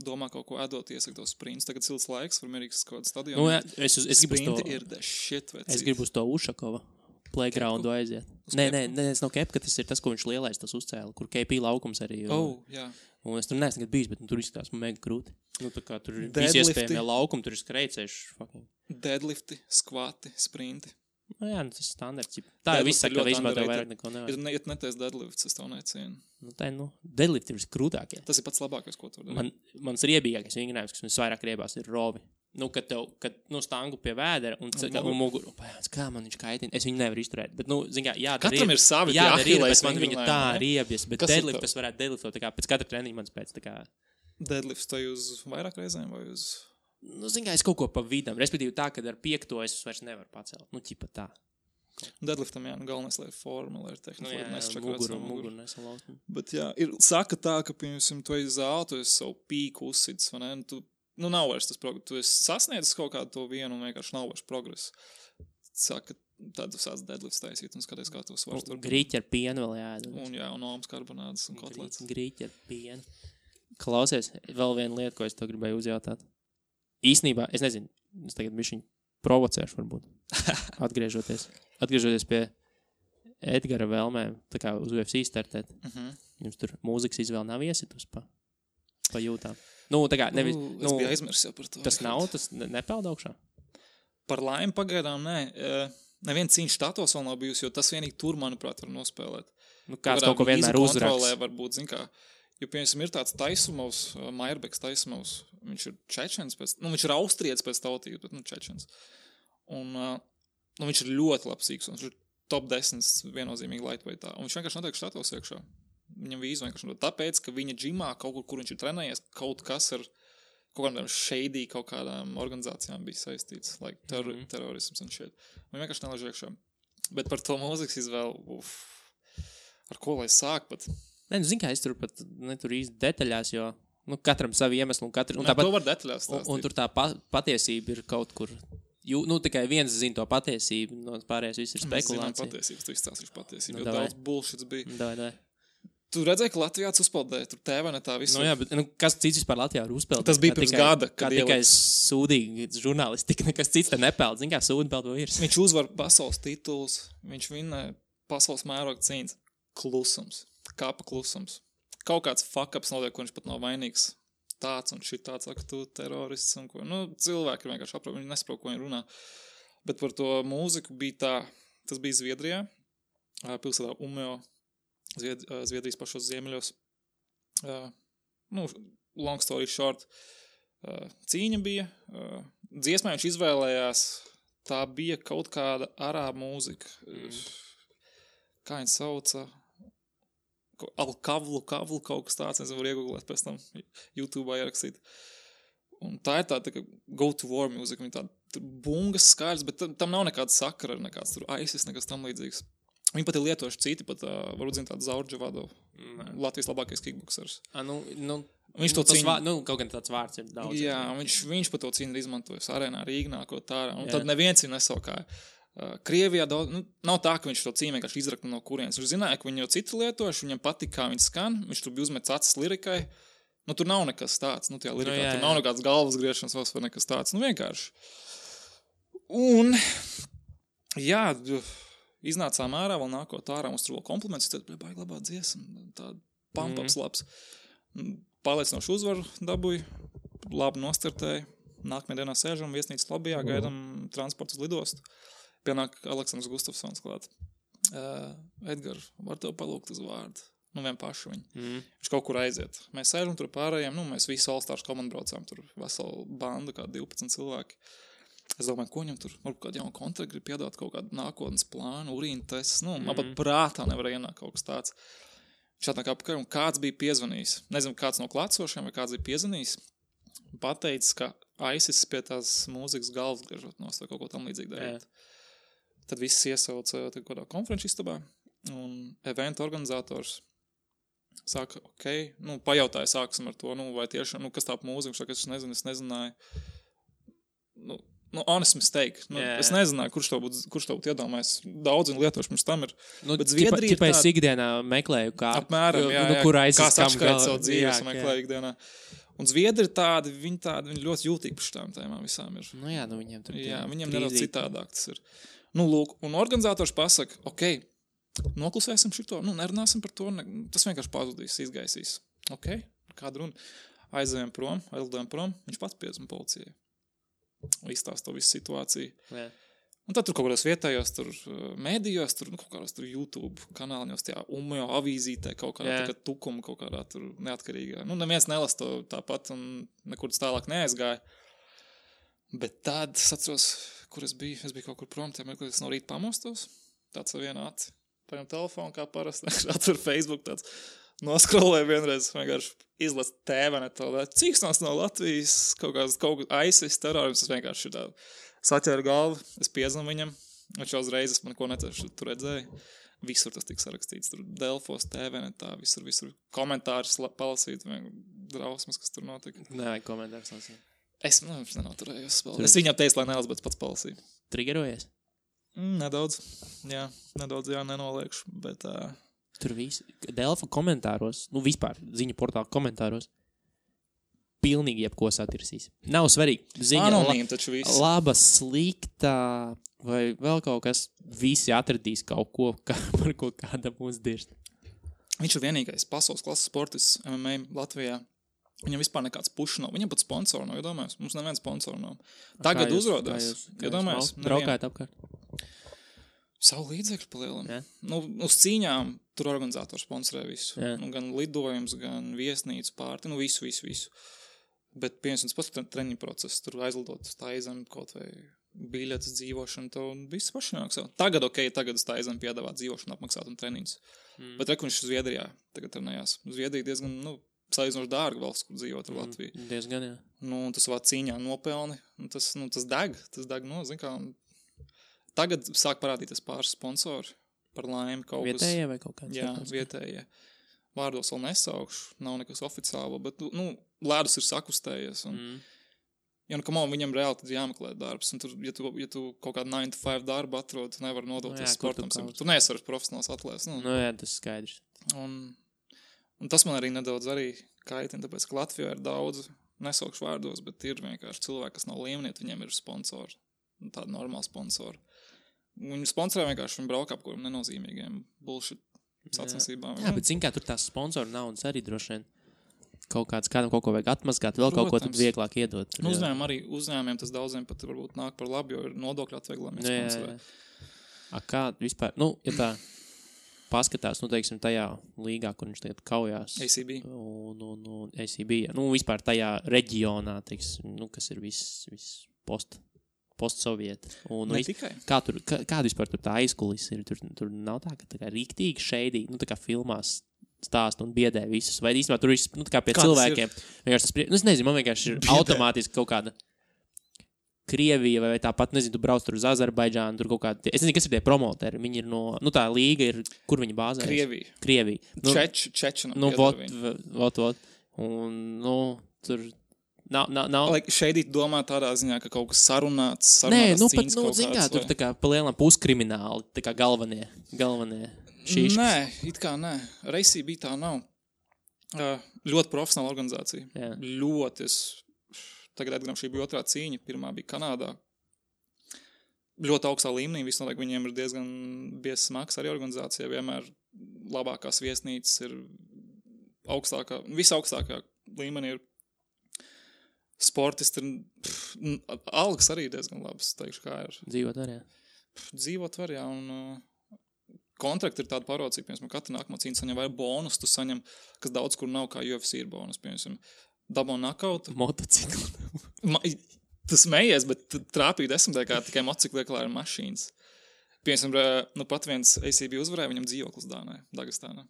domā kaut ko ēdot, iesaka tos sprints. Tagad silts laiks, var mierīgs kaut kādu stadionu. Sprinti ir the shit, vecīt. Es gribu uz to Ušakova playgroundu aiziet. Nē, es nav Kepka, tas ir tas, ko viņš lielais tas uzcēla, kur KP laukums arī. Jā. Un es tur neesmu nekad bijis, bet tur izskatās mega krūti. Tā kā tur visi iespējamie laukumi, tur ir skrejcējuši. Deadlifti, skvati, sprinti. Jā, tas ir standarts. Tā jau viss saka, ka vispār tev vairāk neko nevajag. Ja netais deadlifts, es tev necienu. Deadlift ir krūtākie. Tas ir pats labākais, ko tu dari. Mans riebīgākais vingrinājums, kas man vairāk riebās, ir rovi. Kad stangu pie vēdera un muguru. Kā man viņš kaitina? Es viņu nevaru izturēt. Bet, katram ir savi bet man viņa tā riebjas. Bet deadlift, tas varētu deadliftot pēc katra treniņa mans pēc. Deadlifts to uz vairāk reizēm vai uz... Es kaut ko pa vidam. Respektīvi tā, kad ar 5. es vairs nevaru pacelt. Ķipa tā. Deadliftam, galvenais, lai ir forma, lai ir tehnika. Muguru nesalauzt. Bet saka tā, ka, piemēram, tu esi zāli, tu esi savu pīku uzsits, vai ne? Nav vairs tas progress. Tu esi sasniedzis kaut kādu to vienu un vienkārši nav vairs progress. Saka, tad tu sāc deadlifts taisīt un skaties, kā tu svars tur. Grīķi ar pienu vēl jāēd. Un almas karbonādes un kotlets. Grīķi ar pienu. Klausies, vēl viena lieta, ko es tev gribēju uzjautāt. Īsnībā, es nezinu, es tagad bišķiņ provocēšu varbūt, atgriežoties pie Edgara vēlmēm, tā kā uz UFC startēt. Jums tur mūzikas izvēle nav iesitus pa jūtām. Tā kā nevis... Es biju aizmirsis jau par to. Tas nav, tas nepeld augšā? Par laimi pagaidām, nē. Neviens cīņš štatos vēl nav bijusi, jo tas vienīgi tur, manuprāt, var nospēlēt. Kāds kaut ko vienmēr uzraks. Kontrolē varbūt, zin kā... Jo, piemēram, ir tāds Taisumovs, Maierbeks Taisumovs, viņš ir čečens viņš ir austrietis pēc tautības, bet, čečens. Un viņš ir ļoti labs sīks, un viņš ir top 10 viennozīmīgi lightweightā. Un viņš vienkārši notiek štatos iekšā. Viņam vīzu vienkārši notiek. Tāpēc, ka viņa džimā kaut kur viņš ir trenējies, kaut kas ar kaut kādām shady, kaut kādām organizācijām bija saistīts, terorisms un shit. Viņa vienkārši nelaiž iekšā. Bet par to mūzikas izvēlu, ar ko lai sāk pat... Zin kā, es tur pat netur īsti detaļās, jo katram savi iemesli un katru... To var detaļās stāstīt. Un tur tā patiesība ir kaut kur... Tikai viens zina to patiesību, no pārējais viss ir spekulācija. Mēs zinām patiesības, tu izstāstīšu patiesību, jo daudz bullshits bija. Davai. Tu redzēji, ka Latvijā uzpeldēja, tur TV ne tā visu. Jā, bet kas cits vispār Latvijā var uzpeldēt? Tas bija pirms gada, kad tikai sūdīgi žurnālistika, nekas cits te nepeld. Zin kā, sūdi peld vēl ir. Viņš uzvar pasaules tituls, viņš vinna pasaules mēroga cīņas. Klusums. Kāpa klusums. Kaut kāds fuck-ups notiek, ko viņš pat nav vainīgs. Tāds un šitāds, saka, tu terorists un ko. Cilvēki ir vienkārši aprauj, viņi nesaprot, ko viņi runā. Bet par to mūziku bija tā, tas bija Zviedrijā, pilsētā Umeå, Zviedrijas pašos ziemeļos. Long story short, cīņa bija. Dziesmā viņš izvēlējās, tā bija kaut kāda arābu mūzika. Kā viņa sauca... Alkavlu kaut kas tāds, es varu iegooglēt pēc tam YouTube'ā ierakstīt. Un tā ir tāda go to war music, viņa tāda bungas skaļas, bet tam nav nekāda sakara, nekāds tur ISIS, nekas tam līdzīgs. Viņi pat ir lietojuši citi, pat varbūt zina tādu Zaurdžavado, Latvijas labākais kickboksers. Viņš to cīņu... kaut gan tāds vārds ir daudz. Jā, viņš pat to cīņu ir izmantojis arēnā Rīgnā, ko tā ārā. Un tad neviens viņu nesaukāja. Krievijā daudz... nav tā, ka viņš to cīņu vienkārši izrakna no kurienes. Viņš zināja, ka viņi jau citi lietojuši, viņam patika, kā viņi skan, viņš tur bija uzmets acis lirikai. Tur nav nekas tāds. Tajā lirikā tur nav nekāds galvas griešanas vai nekas tāds. Vienkārši. Un, jā... Iznācām ārā, vēl nākot ārā, mums tur vēl kompliments, tad baigi labā dziesma, tāda pump-ups labs. Pārliecinoši uzvaru dabūju, labi nostartēju, nākamajā dienā sēžam viesnīcas lobijā, gaidam transportu uz lidostu. Pienāk Aleksandrs Gustafsons klāt. Edgar, var tev palūgt uz vārdu? Vien pašu viņu. Viņš kaut kur aiziet. Mēs sēžam tur pārējiem, mēs visi All-Stars komandu braucām, tur veselu bandu, kā 12 cilvēki. Es domāju, ko viņam tur, varbūt kādu jaunu kontraktu grib piedāt, kaut kādu nākotnes plānu, urīnu tests, man pat prātā nevar ienākt kaut kas tāds. Viņš atnāk apkārt, un kāds bija piezvanījis. Nezinu, kāds no klātsošiem vai kāds bija piezvanījis. Pateicis, ka ISIS pie tās mūzikas galvas griežot nost vai kaut ko tam līdzīgi darīt. Tad viss iesauca kādā konferenču istabā, un eventa organizators saka, pajautāja sāksim ar to, vai tiešām, kas tā mūzika, viņš saka, es nezināju. Honest mistake. Es nezināju, kurš to būtu iedomājis. Daudz lietoši mums tam ir. Bet Zviedrija ir tāda... Es ikdienā meklēju, kā... Apmēram, kur aizsas kā saškārt savu dzīves meklēju ikdienā. Un Zviedri ir tādi, viņi ļoti jūtīgi par šitām tēmām visām ir. Viņiem tur... Jā, viņiem nedaudz citādāk tas ir. Lūk, un organizators pasaka, noklusēsim šito, nerunāsim par to, tas vienkārši pazudīs, izgaisīs. Kāda runa? Aizlidojam prom, viņš pats piezvan policijai. Izstāst to visu situāciju. Jā. Un tad tur kaut kādās vietējos, tur mēdījos, tur kaut kādās tur YouTube kanāļos, tajā Umejo avīzītē, kaut kādā tukuma, kaut kādā tur neatkarīgā. Neviens nelas to tāpat un nekur tālāk neaizgāja. Bet tad es atceros, kur es biju kaut kur prom, es no rīta pamostos, tāds ar vienu aci, paņem telefonu kā parasti, atver Facebook tāds, noskrolēju vienreiz, vienkārši izlas tēvenetu, cīksnās no Latvijas, kaut kāds ISIS terrorisms, es vienkārši tā saķēru galvu, es piezvanu viņam, viņš uzreiz man ko netieši tur redzēju, visur tas tika sarakstīts, tur Delfos, tēvenetā, visur komentārus palasīt, drausmas, kas tur notika. Nē, komentārus lasīt. Es nenoturējos spēlēt. Es viņam teicu, lai nelas, bet pats palasīju. Triggerojies? Nedaudz, jā, nenoliekšu, bet... Tur viss, Delfa komentāros, vispār ziņu portāla komentāros, pilnīgi jebko satirsīs. Nav svarīgi. Ziņa anonīm taču viss. Laba, slikta, vai vēl kaut kas, visi atradīs kaut ko, par ko kādam uzdirst. Viņš ir vienīgais pasaules klases sportists MMA Latvijā. Viņam vispār nekāds puš nav. Viņam pat sponsori nav, iedomājies. Mums neviens sponsori nav. Tagad uzrodās. Iedomājies. Braukājat apkārt? Savu līdzekļu palielam. Uz cīņām tur organizators sponsorē visu. Gan lidojums, gan viesnīcu pārti. Visu. Bet, piemēram, pats treniņu process. Tur aizlidot uz Taizemi kaut vai biļetes dzīvošanu. To viss paši nāk savu. Tagad uz Taizemi piedāvāt dzīvošanu apmaksāt un treniņus. Bet viņš ir Zviedrijā. Tagad trenējās. Zviedrija diezgan, salīdzinoši dārga valsts, kur dzīvot ar Latviju. Diezgan, jā. Tas savā cīņā nopelni. Tas deg. Zin kā... Tagad sāk parādīties pāris sponsori par laimi kaut kas. Vietējie vai kaut kāds? Jā, vietējie. Vārdos vēl nesaukšu, nav nekas oficiāli, bet, lēdus ir sakustējies. Viņam reāli tad jāmeklē darbs. Un tur, ja tu kaut kādu 9 to 5 darbu atrod, tu nevar nodoties sportam. Tu neesi vairs profesionāls atlēs. Jā, tas skaidrs. Un tas man arī nedaudz kaitina, tāpēc, ka Latvijā ir daudz, nesaukšu vārdos, bet ir vienkārši cilvēki, kas nav līmenieti, viņiem ir sponsori. Tādi normāli sponsori. Viņi sponsorē vienkārši, viņi brauka ap kuriem nenozīmīgiem bullshit sacensībām. Jā, bet zin kā tur tās sponsoru naudas arī droši vien kādam kaut ko vajag atmazgāt, vēl kaut ko tad vieglāk iedot. Uzņēmumiem tas daudziem pat varbūt nāk par labu, jo ir nodokļu atvieglojumi sponsorē. Kā vispār, ja tā paskatās, teiksim, tajā līgā, kur viņš tagad kaujās. ACB. ACB, vispār tajā reģionā, teiksim, kas ir viss postsovieti. Ne tikai. Kāda vispār tur tā aizkulis ir? Tur nav tā, ka tā kā rīktīgi šeidīgi, tā kā filmās stāsta un biedē visus. Vai īstenībā tur viss, nu, tā kā pie Kā tas cilvēkiem. Vienkārši tas, nu, es nezinu, man vienkārši ir Biedē. automātiski kaut kāda Krievija vai tāpat, nezinu, tu brauc tur uz Azerbaidžānu, tur kaut kāda, es nezinu, kas ir tie promoteri, viņi ir no, nu, tā līga ir, kur viņi bāzējas? Krievija. Nu, Čečina. nu, vot. Un, nu, tur nav. Šeit domā tādā ziņā, ka kaut kas sarunāts Nē, nu, pat, cīņas nu, kaut zin kā, kāds, tur tā kā pa lielam puskrimināli, tā kā galvenie šīškas. Nē, it kā nē. Reisī bija tā nav. Ļoti profesionāla organizācija. Jā. Ļoti. Tagad, atgrām, šī bija otrā cīņa. Pirmā bija Kanādā. Ļoti augstā līmenī. Visnotaļ viņiem ir diezgan biezs smags arī organizācija. Vienmēr labākās viesnīcas ir visaugstākā līmenī ir sportisti. Algas arī diezgan labas, teikšu, kā ir. Dzīvot arī, jā. Dzīvot var, jā, un kontrakti ir tāda parocība, piemēram, katra nākamā cīņa saņem vai bonus, tu saņem, kas daudz kur nav, kā UFC ir bonus, piemēram, dabon nakautu. Motociklu. Tu smējies, bet trāpīja 10. kā tikai motociklieklā ir mašīnas. Piemēram, nu pat viens ACB uzvarēja, viņam dzīvoklis Dagestānā.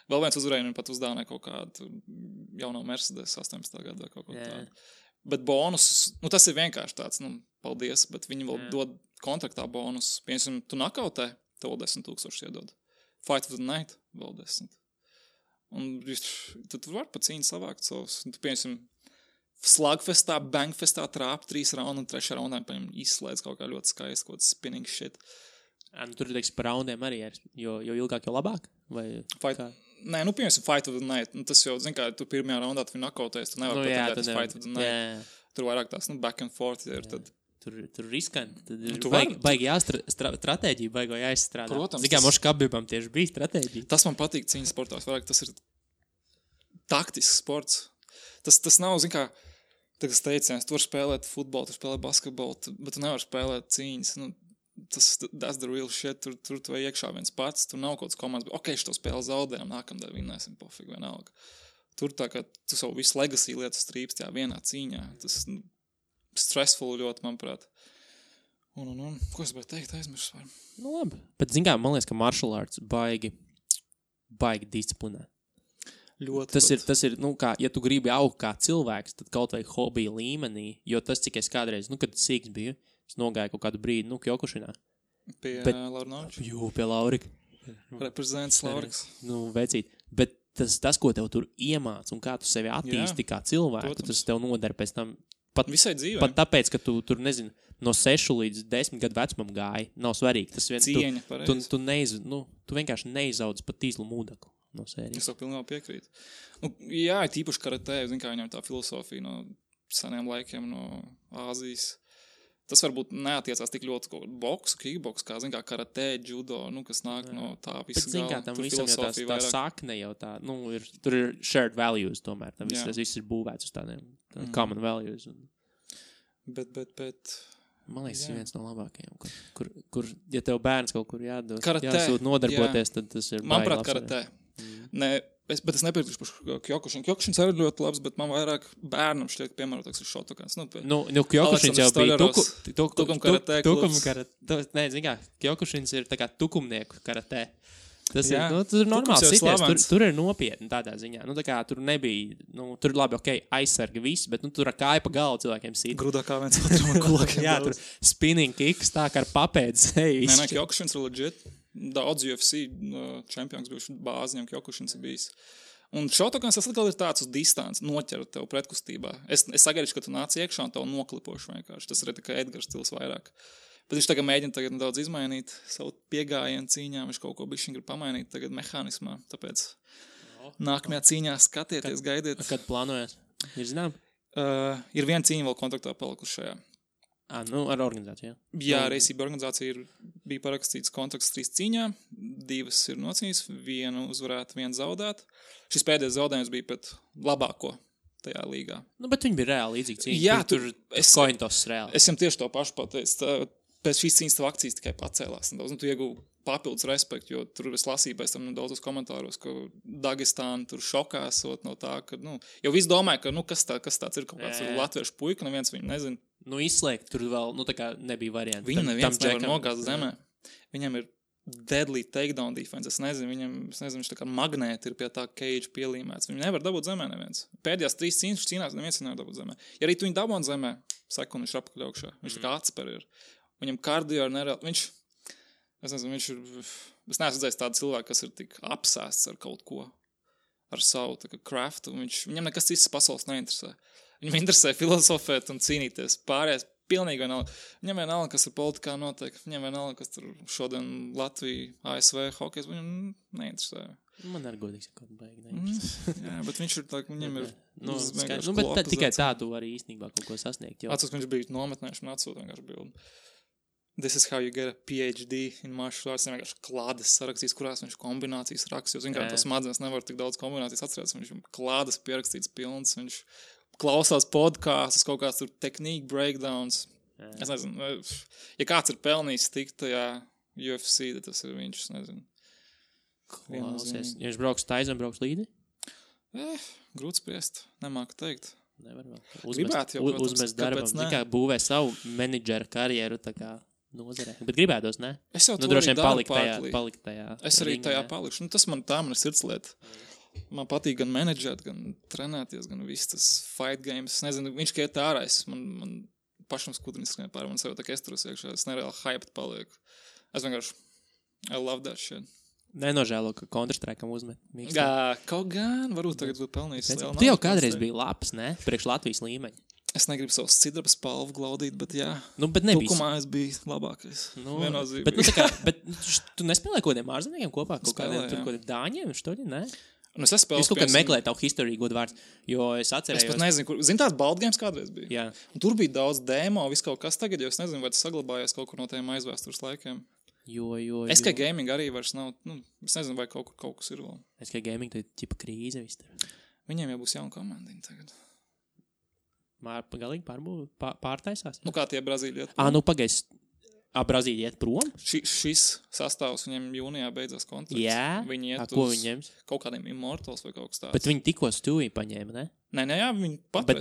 Vēl viens uzvarēja, viņam pat uzdāvināja kaut kādu jauno Mercedes 18. gadu vai kaut ko tādu. Bet bonus, nu tas ir vienkārši tāds, nu, paldies, bet viņi vēl dod kontraktā bonus. Piemēram, tu nakautē, tev 10,000 iedod. Fight of the night, vēl 10. Un tu vari pa cīņu savākt savus. Tu, piemēram, slagfestā, bangfestā trāp 3 raundu un 3. raundā izslēdz kaut kā ļoti skaisti, kaut kāds spinning shit. Nu, tur, teiksim, par raundiem arī ir, jo ilgāk, jo labāk? Vai Nē, nu, piemēram, fight of the night. Nu, tas jau, zin kā, tu pirmajā raundā tu nakautēs, tu nevar pateikt fight of the night. Jā. Tur vairāk tās, nu, back and forth ir. Tad... Tur riskanti. Tad ir nu, baigi stratēģija, baigi jāizstrādā. Protams. Zin kā, mošu kabībām tieši bija stratēģija. Tas man patīk cīņas sportās. Vairāk tas ir taktisks sports. Tas nav, zin kā, tas teiciens, tu vari spēlēt futbolu, tu spēlēt basketbolu, bet tu nevari spēlēt cīņas. Nu, that's the real shit. Tur tu vai iekšā viens pats, tur nav kaut kāds komandas, bet ok, šo spēli zaudējam, nākamdēļ vinnēsim, pofīgi vienalga. Tur tā kā tu savu visu legacy lietu strīpst tajā vienā cīņā. Tas stressful ļoti, manuprāt. Un ko es biju teikt, aizmirst var? Nu labi. Bet zin kā, man liekas, ka martial arts baigi disciplinē. Ļoti. Tas ir, nu kā, ja tu gribi augt kā cilvēks, tad kaut vai hobija līmenī, jo tas, cik es kādreiz, nu, kad sīks biju, es nogāju kaut kādu brīdi, nu, Kjokušinā. Pie Laurinoviča? Jū, pie Laurika. Reprezents Lauriks. Nu, vecīt. Bet tas, ko tev tur iemāc un kā tu sevi attīsti kā cilvēku, protams. Tas tev nodara pēc tam. Visai dzīvē. Pat tāpēc, ka tu tur, nezinu, no 6 līdz 10 gadu vecumam gāji, nav svarīgi. Tas cieņa, pareizi. Tu vienkārši neizaudz pat tīzlu mūdeklu no sērijas. Es to pilnībā piekrītu. Nu, jā, tīpaši karatē, zin kā viņam tā filosofija no seniem laikiem, no Āzijas. Tas varbūt neatiecās tik ļoti kaut boksu, kickboksu, kā, zin kā, karatē, judo, nu, kas nāk no tā visa galva. Bet, zin kā, tam visam jau tā sakne jau tā, nu, tur ir shared values tomēr, tam tas viss ir būvēts uz tādiem common values. Bet. Man liekas, tas ir viens no labākajiem, kur, ja tev bērns kaut kur jāsūt nodarboties, tad tas ir manuprāt, karatē. Bet es nepiekrītu par Kjokušinu. Kjokušins arī ļoti labs, bet man vairāk bērnam šķiet, piemērotāks ir šotokāns. Nu, Kjokušins jau bija tukum karatē klubs. Nē, zin kā, Kjokušins ir tā kā tukumnieku karatē. Tas ir, nu, tur ir normāls sities, tur ir nopietni tādā ziņā. Nu, tā kā tur nebija, nu, tur labi, ok, aizsarga viss, bet, nu, tur ar kāju pa galvu cilvēkiem sit. Grudā kā viens otram ar kulakiem. Jā, tur spinning kicks tā kā ar papēdz. Nē, Kjokušins ir legit. Daudz UFC čempions bijuši bāzi, viņam Kjokušins ir bijis. Un šotokāns tas atkal ir tāds uz distanci, noķer tev pretkustībā. Es sagaidu, ka tu nāc iekšā un tev noklipošu vienkārši. Tas ir tikai Edgars stils vairāk. Bet viņš tagad mēģina nedaudz izmainīt savu piegājienu cīņā, viņš kaut ko bišķiņ grib pamainīt tagad mehānismā, tāpēc nākamajā cīņā skatieties, gaidiet. Kad plānojas? Ir zinām? Ir viena cīņa vēl kontraktā palikuši šajā. Nu, ar organizāciju, jā? Jā, Reisība organizācija bija parakstīts kontrakts 3 cīņā, 2 ir nocīņas, 1 uzvarēt, 1 zaudēt. Šis pēdējais zaudējums bija pēc labāko tajā līgā. Nu, bet viņi bija reāli līdzīgi cīņa. Jā, tur kointos reāli. Es jums tieši to pašu pateicu. Pēc šīs cīņas tev akcijas tikai pacēlās. Tu iegūvi papildus respektu, jo tur es lasīju pēc tam daudzos komentāros, ka Dagestāna tur šokās no tā, ka, nu, jau viss domāja, ka, nu, kas tāds ir kaut kāds latviešu puika, neviens viņu nezina. Nu, izslēgt tur vēl, nu, tā kā nebija varianti. Viņu neviens nevar nogāzt zemē. Viņam ir deadly takedown defense. Es nezinu, viņš tā kā magnēti ir pie tā cage pielīmēts. Viņu nevar dabūt zemē neviens. Pēdējās 3 cīņas cīnās neviens nevar dabūt zemē. Ja arī tu viņu dabūn zemē, sekundi viņš ir apakaļ augšā. Viņš tā kā atspēr ir. Viņam kardio ir nereāli. Es neesmu redzējis tādu cilvēku, kas ir tik apsēsts ar kaut ko, ar savu tā kā craftu. Viņam nekas cits pasaules neinteresē. Viņam interesē filozofēt un cīnīties. Pārējais pilnīgi vienalga. Viņam vienalga, kas ir politikā notiek. Viņam vienalga, kas tur šodien Latvija, ASV, hokejs. Viņam neinteresē. Man arī godīgi sakot, baigi neinteresē. Jā, bet viņš ir tā, viņam ir... bet tikai tā tu vari īstenībā kaut ko sasniegt. Atceros, ka viņš bija nometnējuši un atsūta vienkārši bildi. This is how you get a PhD in martial arts. Viņš vienkārši klādes sarakstīs, kurās viņš kombinācijas raksts. Jo vienkārši tas smadzenes nevar tik daudz kombinācijas atcerēties. Viņš klādes pierakstīts pilns. Viņš klausās podkāstus, kaut kāds tur tehnika breakdowns. Jā. Es nezinu, ja kāds ir pelnījis tikt tajā UFC, tad tas ir viņš, es nezinu. Klausies. Ja viņš brauks taizam, brauks līdi? Grūti spriest, nemāku teikt. Nevar vēl. Uzmest darbam, kā būvē savu menedžera karjeru, tā kā nozarē. Bet gribētos, ne? Es jau to droši vien palikt tajā. Es arī tajā palikšu. Tas man tā ir sirdslieta. Man patīk gan menedžēt, gan trenēties, gan viss tas fight games. Es nezinu, viņš kā iet ārā, man pašam skudriņas skrien pāri, man sev tā kā esteros iekšā, es nereāli hyped palieku. Es vienkārši, I love that shit. Nenožēlo, ka Counter-Strike'am uzmet. Kaut gan, varbūt tagad būtu pelnījis. Tu jau kādreiz biji labs, ne? Priekš Latvijas līmeņa. Es negribu savus cidraba spalvu glaudīt, bet jā. Bet nebija. Tukumā es biju labākais. Bet tu nespēlēji kaut kādiem ārzemniekiem kopā? Kaut kādiem dāņiem, štoļi, ne? Es spēlēju. Es kaut kad meklēju tavu historiju godu vārds, jo es atcerējos. Es pat nezinu, kur. Zini, tāds Board Games kādreiz bija? Jā. Un tur bija daudz demo, viss kaut kas tagad, jo es nezinu, vai tas saglabājies kaut kur no tiem aizvēstures laikiem. SK Gaming arī vairs nav, es nezinu, vai kaut kas ir vēl. SK Gaming, tā ir ķipa krīze viss tur. Viņiem jau būs jauna komandiņa tagad. Galīgi pārtaisās? Kā tie Brazīļi iet? Pagais. Brazīļi iet prom? Šis sastāvs viņiem jūnijā beidzās kontrakts. Jā? Viņi iet ko viņi ņems? Kaut kādiem Immortals vai kaut kas tāds. Bet viņi tikko Stuvī paņēma, ne? Nē, jā, viņi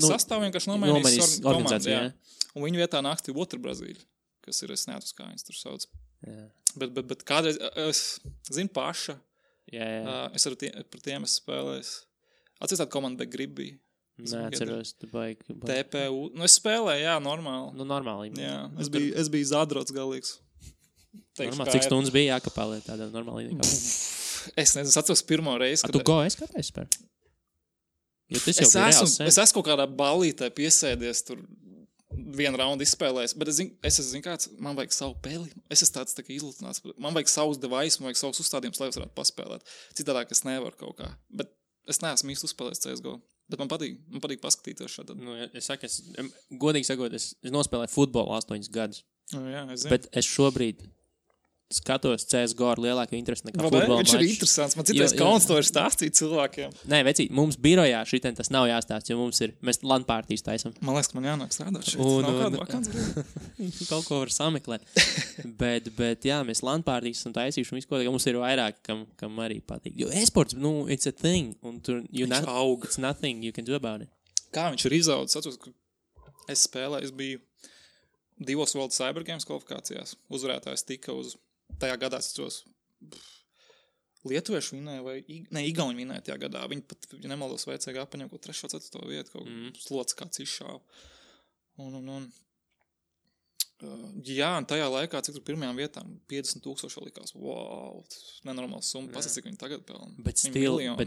sastāvu vienkārši nomainīs organizāciju, jā. Un viņu vietā nāks otru Brazīļu, kas ir, es neatceros, kā viņas tur sauc. Jā. Bet kādreiz, es zinu paša. Jā. Es par tiem esmu spēlējis. Atceries tādu komandu Begribī. Neatceros, tu baigi. TPU. Es spēlēju, jā, normāli. Normāli. Jā, es biju zadrots galīgs. Normāli, cik stundas bija jākapēlē tādā normāli? Es nezinu, es atceros pirmo reizi. Tu es kāpēc spēr? Jo tas jau bija reāls. Es esmu kaut kādā ballītē piesēdies tur vienu raundu izspēlējis, bet es zinu kāds, man vajag savu peli. Es esmu tāds tā kā izlutināts. Man vajag savus device, man vajag savus uzstādījumus, lai es varētu paspēlēt. Citādāk es nevaru kaut kā. Bet es neesmu īsti uzspēlējis CSGO. Bet man patīk paskatīties šādā. Godīgi sakot, es nospēlēju futbolu 8 gadus. Jā, es zinu. Bet es šobrīd skatos CSGO ar lielāku interesi nekā futbola mačs. Viņš ir interesants. Man citais kauns to ir stāstīt cilvēkiem. Nē, vecīt, mums birojā šitien tas nav jāstāst, jo mēs LAN partijas taisam. Man liekas, ka man jānāk strādāt šeit. Nav kāda vakants. Kaut ko var sameklēt. bet jā, mēs LAN partijas esam taisījuši un visu ko, mums ir vairāk, kam arī patīk. Jo esports, it's a thing. Un tur, it's nothing you can do about it. Kā viņš ir izaudzis? Es spēlēju, es biju 2 World Cyber Games kvalifikācijās. Uzvarētājs tika uz tajā gadā, es atceros, lietuvieši vinēja vai igauņi vinēja tajā gadā. Viņi pat, ja nemaldos, vajadzēja apaņem kaut 3. 4. vietu, kaut slots kāds izšāva. Jā, un tajā laikā, cik tur pirmajām vietām 50,000 likās. Wow, nenormāls summa. Pasaka, cik viņi tagad pelna. Bet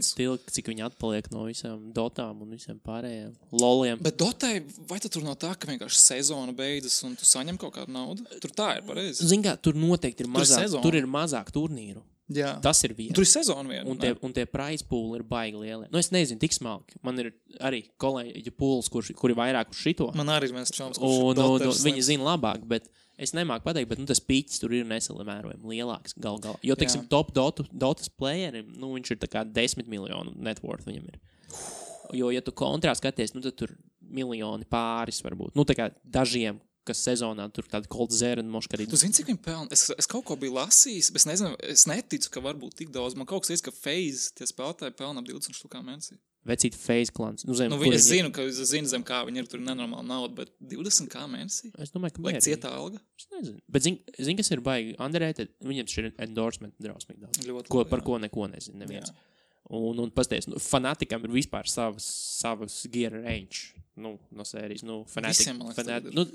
stil, cik viņi atpaliek no visām dotām un visiem pārējiem loliem. Bet dotai, vai tur nav tā, ka vienkārši sezona beidzas un tu saņem kaut kādu naudu? Tur tā ir pareizi. Zin kā, tur noteikti ir mazāk, tur ir mazāk turnīru. Jā. Tas ir viena. Tur ir sezona viena. Un tie prize pool ir baigi lielie. Es nezinu, tik smalki. Man ir arī kolēģi pools, kuri vairāk uz šito. Man arī viens čoms, kurš viņi zina labāk, bet es nemāku pateikt, bet tas pīķis tur ir nesalimērojami lielāks galā. Jo, teiksim, top dotas playerim, viņš ir tā kā 10 miljonu net worth viņam ir. Jo, ja tu kontrā skaties, tad tur miljoni pāris varbūt. Tā kā dažiem, kas sezonā tur tāda Cold Zera un Moškarīda. Tu zini, cik viņi pelna? Es kaut ko biju lasījis, bet es nezinu, es neticu, ka varbūt tik daudz. Man kaut kas teica, ka FaZe tie spēlētāji pelna 20 štukā mēnesī. Vecīt FaZe klans. Nu, es zinu, zem kā viņi ir, tur nenormāli nauda, bet 20 kā mēnesī? Es domāju, ka mērīgi. Cietā alga? Es nezinu. Bet zin, kas ir baigi underrated? Viņam šī ir endorsement drausmīgi daudz. Par ko neko nezinu neviens. Jā. Un pasties, Fanaticam ir vispār savas gear range. No sērijas, Fanatic.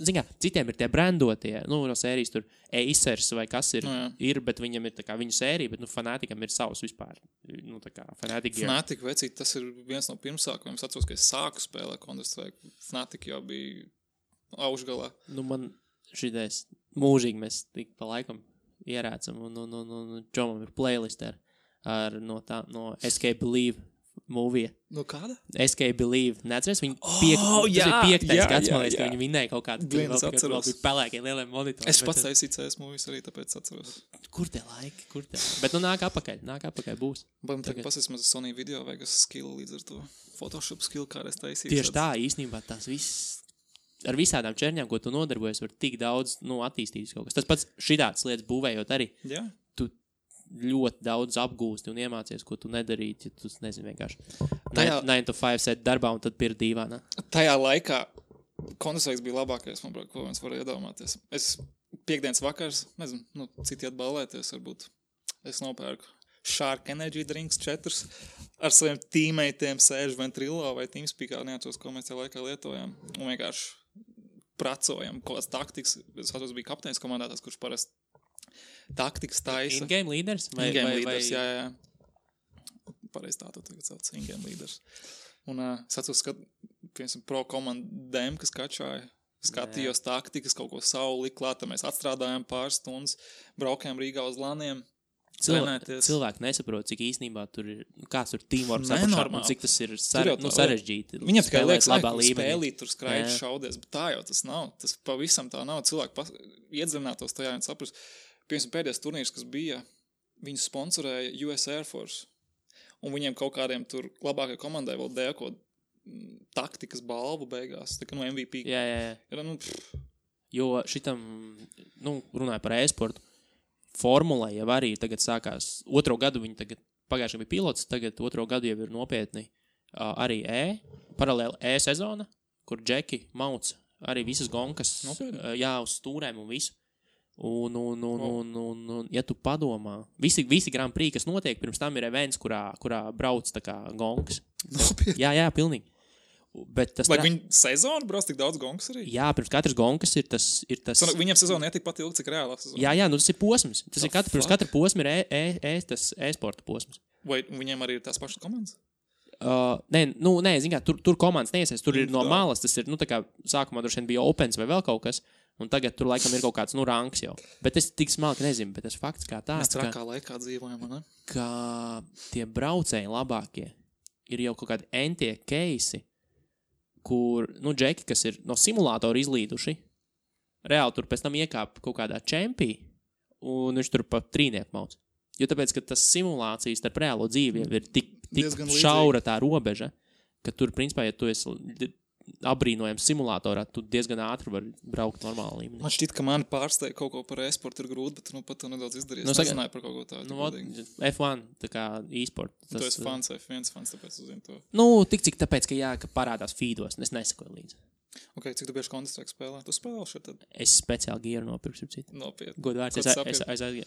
Zin kā, citiem ir tie brandotie, no sērijas tur Acers vai kas ir, bet viņam ir tā kā viņu sērija, bet Fanaticam ir savs vispār. Tā kā Fanatic gear. Fanatic, vecīt, tas ir viens no pirmsākumiem. Es atceros, ka es sāku spēlēt Counter-Strike. Fanatic jau bija augšgalā. Man šitais mūžīgi mēs tik pa laikam ierācam un Džomam ir playlist no Escape Believe movie. No kāda? Escape Believe. Neatceries? Tas ir 5. gads, man liekas, ka viņi vinnēja kaut kādu. Es atceros. Bija pelēkie lielie monitori. Es pats taisīju CS movies arī, tāpēc atceros. Kur te laiki? Bet nāk apakaļ būs. Man tagad pasēs maz Sony video Vegas skill līdz ar to. Photoshop skill, kā es taisīju. Tieši tā, īstenībā tās viss. Ar visādām čerņām, ko tu nodarbojies, var tik daudz attīstīt kaut kas. Tas pats šitāds lietas būvējot arī. Jā. Tu ļoti daudz apgūsti un iemācies, ko tu nedarītu, ja tu nezini vienkārši 9 to 5 set darbā un tad pirkt dīvānā. Tajā laikā Counter-Strike bija labākais, manuprāt, ko mēs varēja iedomāties. Es piekdienas vakars, nezinu, citi atballēties varbūt. Es nopērku Shark Energy Drinks 4 ar saviem teammateiem sēžu Ventrilo vai Teamspeakā, neatceros, ko mēs tajā laikā lietojām. Un vienkārši pracojam, kaut kāds taktikas. Es atceros, bija kapteinis komandātājs, kurš parasti taktikas taisa. In-game leaders? In-game leaders, jā. Pareiz tā tu tagad sauc, in-game leaders. Un es atceros, ka, piemēram, pro komandēm, kas kačāja, skatījos taktikas, kaut ko savu likt klāt, mēs atstrādājām pāris stundas, braukājām Rīgā uz laniem. Cilvēki nesaprot, cik īstenībā tur ir, kāds tur teamworks apakšā, un cik tas ir sarežģīti. Viņam tikai liekas, spēlīt, tur skraidži šaudies, bet tā jau tas nav. Tas pavisam tā nav. Cilvēki iedzinātos tajā un saprast. Piemēram, pēdējais turnīrs, kas bija, viņu sponsorēja US Air Force. Un viņiem kaut kādiem tur labākai komandai vēl dēļ kaut taktikas balvu beigās. Tā kā MVP. Jā. Jo šitam, runāja par e-sportu, formulē jau arī tagad sākās. Otro gadu viņi tagad, pagājušajā bija pilots, tagad otro gadu jau ir nopietni arī paralēli sezona, kur Džeki mauc arī visas gonkas, uz stūrēm un visu. Un ja tu padomā, visi Grand Prix, kas notiek, pirms tam ir events, kurā brauc tā kā gonkas. Jā, pilnīgi. Bet tas vai viņi sezonu brauc tik daudz gonkas arī? Jā, pirms katras gonkas ir tas... Viņam sezona netik pat ilgi, cik reālā sezona. Jā, tas ir posms. Pirms katra posma ir tas e-sporta posms. Vai viņiem arī ir tās pašas komandas? Nē, zin kā, tur komandas neiesies, tur ir no malas, tas ir, tā kā sākumā droši vien bija Opens vai vēl kaut kas, un tagad tur laikam ir kaut kāds, rangs jau. Bet es tik smalki nezinu, bet tas fakts kā tāds, mēs trakā laikā dzīvojam, ne? Ka tie braucēji labākie ir jau kaut kādi entie keisi, kur, džeki, kas ir no simulātora izlīduši, reāli tur pēc tam iekāp kaut kādā čempī, un viņš tur pa trīnieku mauc. Jo tāpēc, ka tas simulācijas starp reālo dzīvi ir tik šaura tā robeža, ka tur, principā, ja tu esi apbrīnojams simulātorā, tu diezgan ātri vari braukt normāli līmenī. Man šķiet, ka mani pārsteig kaut ko par e-sportu ir grūti, bet pat to nedaudz izdarījies. Nezināju par kaut ko tādu. F1, tā kā e-sport. Tu esi fans, F1 fans, tāpēc uzzinu to. Tik cik tāpēc, ka parādās feedos, es nesakoju līdzi. Ok, cik tu bieži Counter-Strike spēlē? Tu spēlē šeit tad? Es speciāli gieru nopirku, citu. Nopietni. Godvārds, es aizgāju.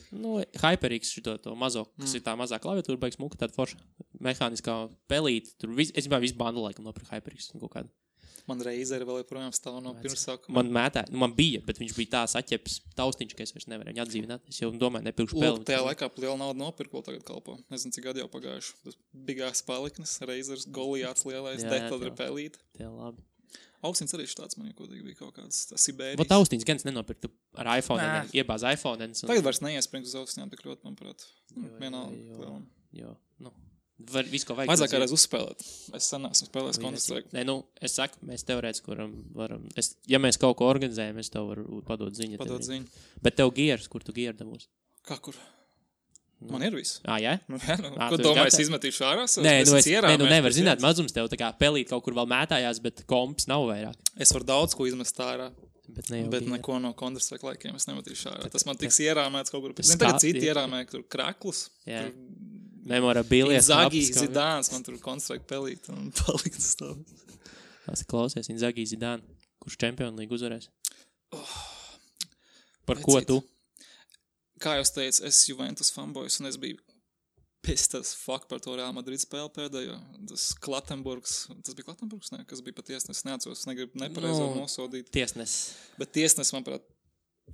HyperX to mazo, kas ir tā mazā klaviatūra, baigs muka, tāda forša mehāniskā pelīte. Tur es visu bandu laikam nopirku HyperX kaut kādu. Man Razer vēl joprojām stāv no pirmsākuma. Man mētā, man bija, bet viņš bija tā saķeps taustiņš, ka es vairs nevarēju viņu atdzīvināt. Es jau domāju, nepirkšu spēli. Tajā laikā liela nauda nopirku, vēl tagad kalpo. Nezinu, cik gadi jau pagājuši. Tas bigās paliknes, Razers, Goliāts lielais, Dektadra pelīte. Tie labi. Austiņas arī štāds man kodīgi bija kaut kāds Sibērijas. Vat austiņas gan nenopirktu ar iPhone, iebāz iPhone. Tagad vairs neiespringt uz austiņām tik ļoti, manuprāt. Jo. Visu, ko vajag. Vajadzāk kādreiz uzspēlēt. Es sen esmu spēlējis Counter-Strike. Nē, es saku, mēs teorētiski varam. Ja mēs kaut ko organizējam, es tev varu padot ziņu. Bet tev gieras, kur tu gieru dabūs? Kā kur? Man ir viss. Jā? Ko domāju, es izmetīšu ārā? Nē, nevar zināt, mazums tev tā kā pelīt kaut kur vēl mētājās, bet komps nav vairāk. Es varu daudz ko izmest ārā. Bet neko no Counter-Strike laikiem es nemetīšu ārā. Tas man tiks ierāmēts kaut kur. Tagad citi ierāmē tur kraklus. Memorabilia. Inzaghi, Zidāns, man tur konstrukti pelīt un palikt stāv. Tas klausies, Inzaghi, Zidāni, kurš Champions League uzvarēs? Par ko tu? Kā jau teicu, es Juventus fanboys un es biju pissed as fuck par to Real Madrid spēli pēdējo. Tas Klatenburgs, tas bija Klatenburgs, ne? Kas bija pat tiesnesis, neatceros, es negribu nepareizo nosodīt. Tiesnesis. Bet tiesnesis, manuprāt,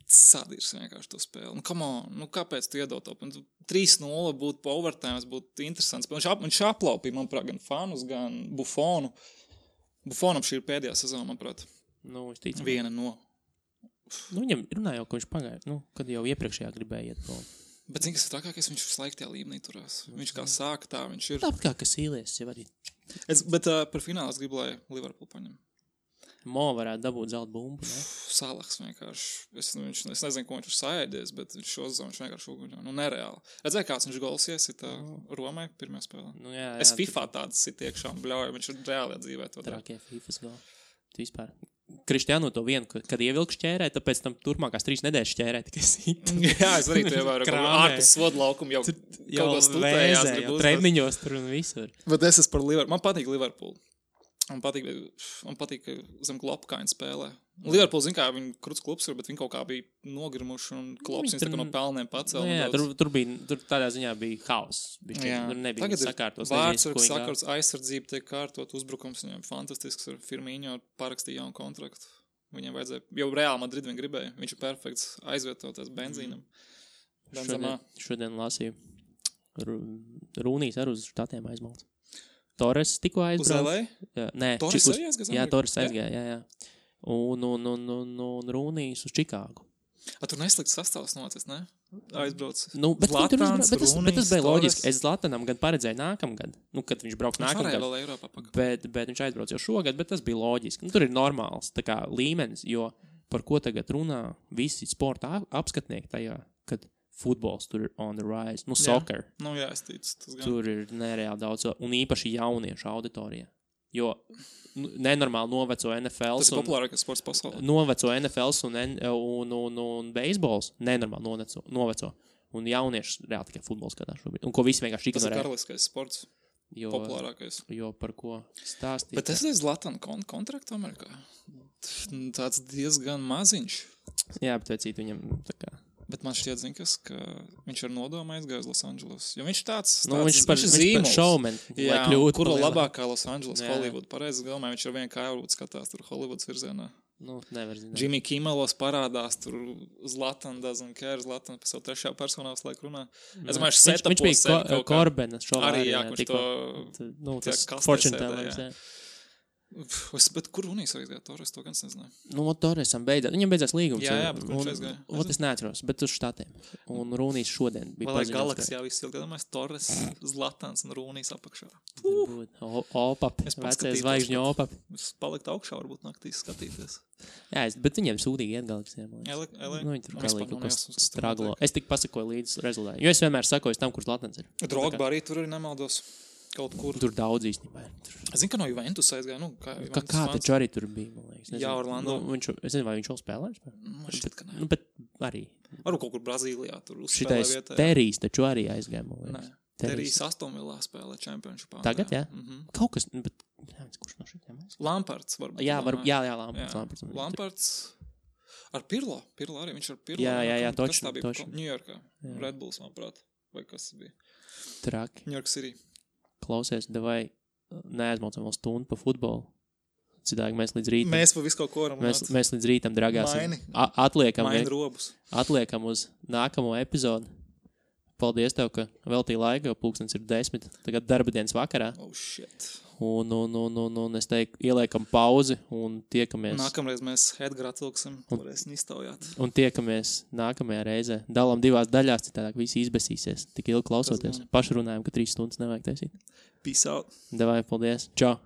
sadīrs vienkārši to spēli. Nu, come on, nu kāpēc tu iedod to? 3-0 būtu pa overtime, būtu interesants. Viņš aplaupīja, manuprāt, gan fanus, gan Buffonu. Buffonam šī ir pēdējā sezona, manuprāt. Nu, es ticu. Viena no. Nu, viņam runāja jau, ka viņš pagāja, nu, kad jau iepriekšējā gribēja iet prom. Bet, zini, kas ir trakākais, viņš visu laiku tajā līmenī turās. Viņš kā sāka tā, viņš ir... Tāpat kā Kasīlies jau arī. Bet par finālu es gribu, lai Liverpool paņem. Mo varētu dabūt zelta bumbu, ne? Salahs vienkārši. Es nezinu, ko viņš ir saēdies, bet šo sezonu viņš vienkārši uguņo. Nu, nereāli. Redzēju, kāds viņš gols iesita Romai pirmajā spēlē. Nu, jā, es FIFA tādas sit iekšā un bļauju, viņš ir reāli dzīvē to dara. Trakie FIFAs goli. Vispār. Krištiānu to vienu, kad ievilku šķērē, tāpēc tam turpmākās 3 nedēļas šķērē tikai sit. Jā, es arī to ievēru. Ārpus svodu laukumu jau kaut ko stutējās. Jau treniņos tur un visur. Bet es esmu par Liverpool. Man patīk Liverpool. Man patīk, ka zem Klopkaina spēlē. Liverpool, zin kā, viņi kruts klubs ir, bet viņi kaut kā bija nogrimuši un Klops viņus tā kā no pelniem pacēl. Jā, tur tādā ziņā bija haoss. Tur nebija sakārtos. Vārdsargs sakārtos, aizsardzība tiek kārtot, uzbrukums viņam fantastisks ar Firmino pārrakstīja jaunu kontraktu. Viņam vajadzēja, jau Real Madrid viņi gribēja, viņš ir perfekts aizvietoties benzīnam. Šodien lasīju. Rūnīs ar uz štatiem aizmalts. Torres tikko aizbrauc. Nē, Torres arī aizgāja? Jā, Torres aizgāja, jā. Un Rūnīs uz Čikāgu. Tur neslikts sastāvs nācies, ne? Aizbrauc. Nu, bet Zlatans, bet tas bija loģiski. Es Zlatanam gan paredzēju nākamgad. Nu, kad viņš brauks nākamgad. Viņš varēja vēl Eiropā pakaļ. Bet viņš aizbrauc jau šogad, bet tas bija loģiski. Nu, tur ir normāls tā kā līmenis, jo par ko tagad runā visi sporta apskatnieki tajā, kad futbols tur ir on the rise. Nu, soccer. Nu, jā, es ticu. Tur ir nereāli daudz, un īpaši jauniešu auditorija. Jo nenormāli noveco NFL. Tas ir populārākais sports pasaulē. Noveco NFL un beisbols nenormāli noveco. Un jaunieši reāli tikai futbols skatās šobrīd. Un ko visi vienkārši ignorē. Tas ir karaliskais sports. Populārākais. Jo par ko stāstīt. Bet es esmu Zlatana kontraktu Amerikā. Tāds diezgan maziņš. Jā, bet vecīt viņam tā kā. Bet man šķiet, ka viņš ar nodomu aizgāja uz Losandželos. Jo viņš tāds viņš par showman, jā, kuru labākā Losandželos, Hollywood. Pareizi galvā, viņš ar vienu kāju skatās tur Hollywoods virzienā. Nu, nevar zināt. Jimmy Kimmelos parādās tur Zlatan doesn't care, Zlatan pa savu trešajā personā visu laiku runā. Es domāju, viņš bija Korbenas šovā. Arī, jā, kurš to tas fortune tellers, jā. Bet kur Runīs aizgāja? Torres to gan nezināju. Nu, Torresam beidzās. Viņam beidzās līgums. Jā, bet viņš aizgāja. Es neatceros, bet uz štatiem. Un Runīs šodien bija paziņots. Vai Galaksijā viss ilgi domājas Torres, Zlatans un Runīs apakšā. Opap, vecais zvaigžņu opap. Es palikt augšā, varbūt naktīs skatīties. Jā, bet viņiem sūdīgi iet Galaksijā. Viņi tur galīgi kaut kas straglo. Es tik pasakoju līdz rezultātiem. Jo es vienmēr sakoju tam, kur Zlatans ir. Drogba arī tur arī nemaldos. Kaut kur. Tur daudz īstenībā. Es zinu, ka no Juventus aizgāja. Nu, kā taču arī tur bija, man liekas. Jā, Orlando. Es nezinu, vai viņš vēl spēlēs. Man šķiet, ka ne. Nu, bet arī. Varu kaut kur Brazīlijā tur uzspēlē vietā. Šitais Terijs taču arī aizgāja, man liekas. Nē. Terijs Astonvillā spēlē championshipā. Tagad, jā? Kaut kas, bet, kurš no šitiem mēs? Lampards varbūt. Jā, Lampards. Lampards. Ar Pirlo. Pirlo arī, viņš ar Pirlo. Jā, toči. Ņujorkā. Red Bulls, manuprāt. Vai kas bija? Traki. Ņujork City. Klausies, davai neaizmaucam vēl stundu pa futbolu. Citādi mēs līdz rītam. Mēs pa visu kaut ko varam. Mēs līdz rītam dragāsim. Atliekam uz nākamo epizodu. Paldies tev, ka veltīji laiku, jo pulkstens ir 10. Tagad darba dienas vakarā. Oh, shit. Un es teiktu, ieliekam pauzi un tiekamies. Nākamreiz mēs Edgara atvilksim, varēsim iztaujāt. Un tiekamies nākamajā reizē. Dalam 2 daļās, citādāk visi izbesīsies. Tik ilgi klausoties. Pašrunājam, ka 3 stundas nevajag taisīt. Peace out. Davai, paldies. Čau.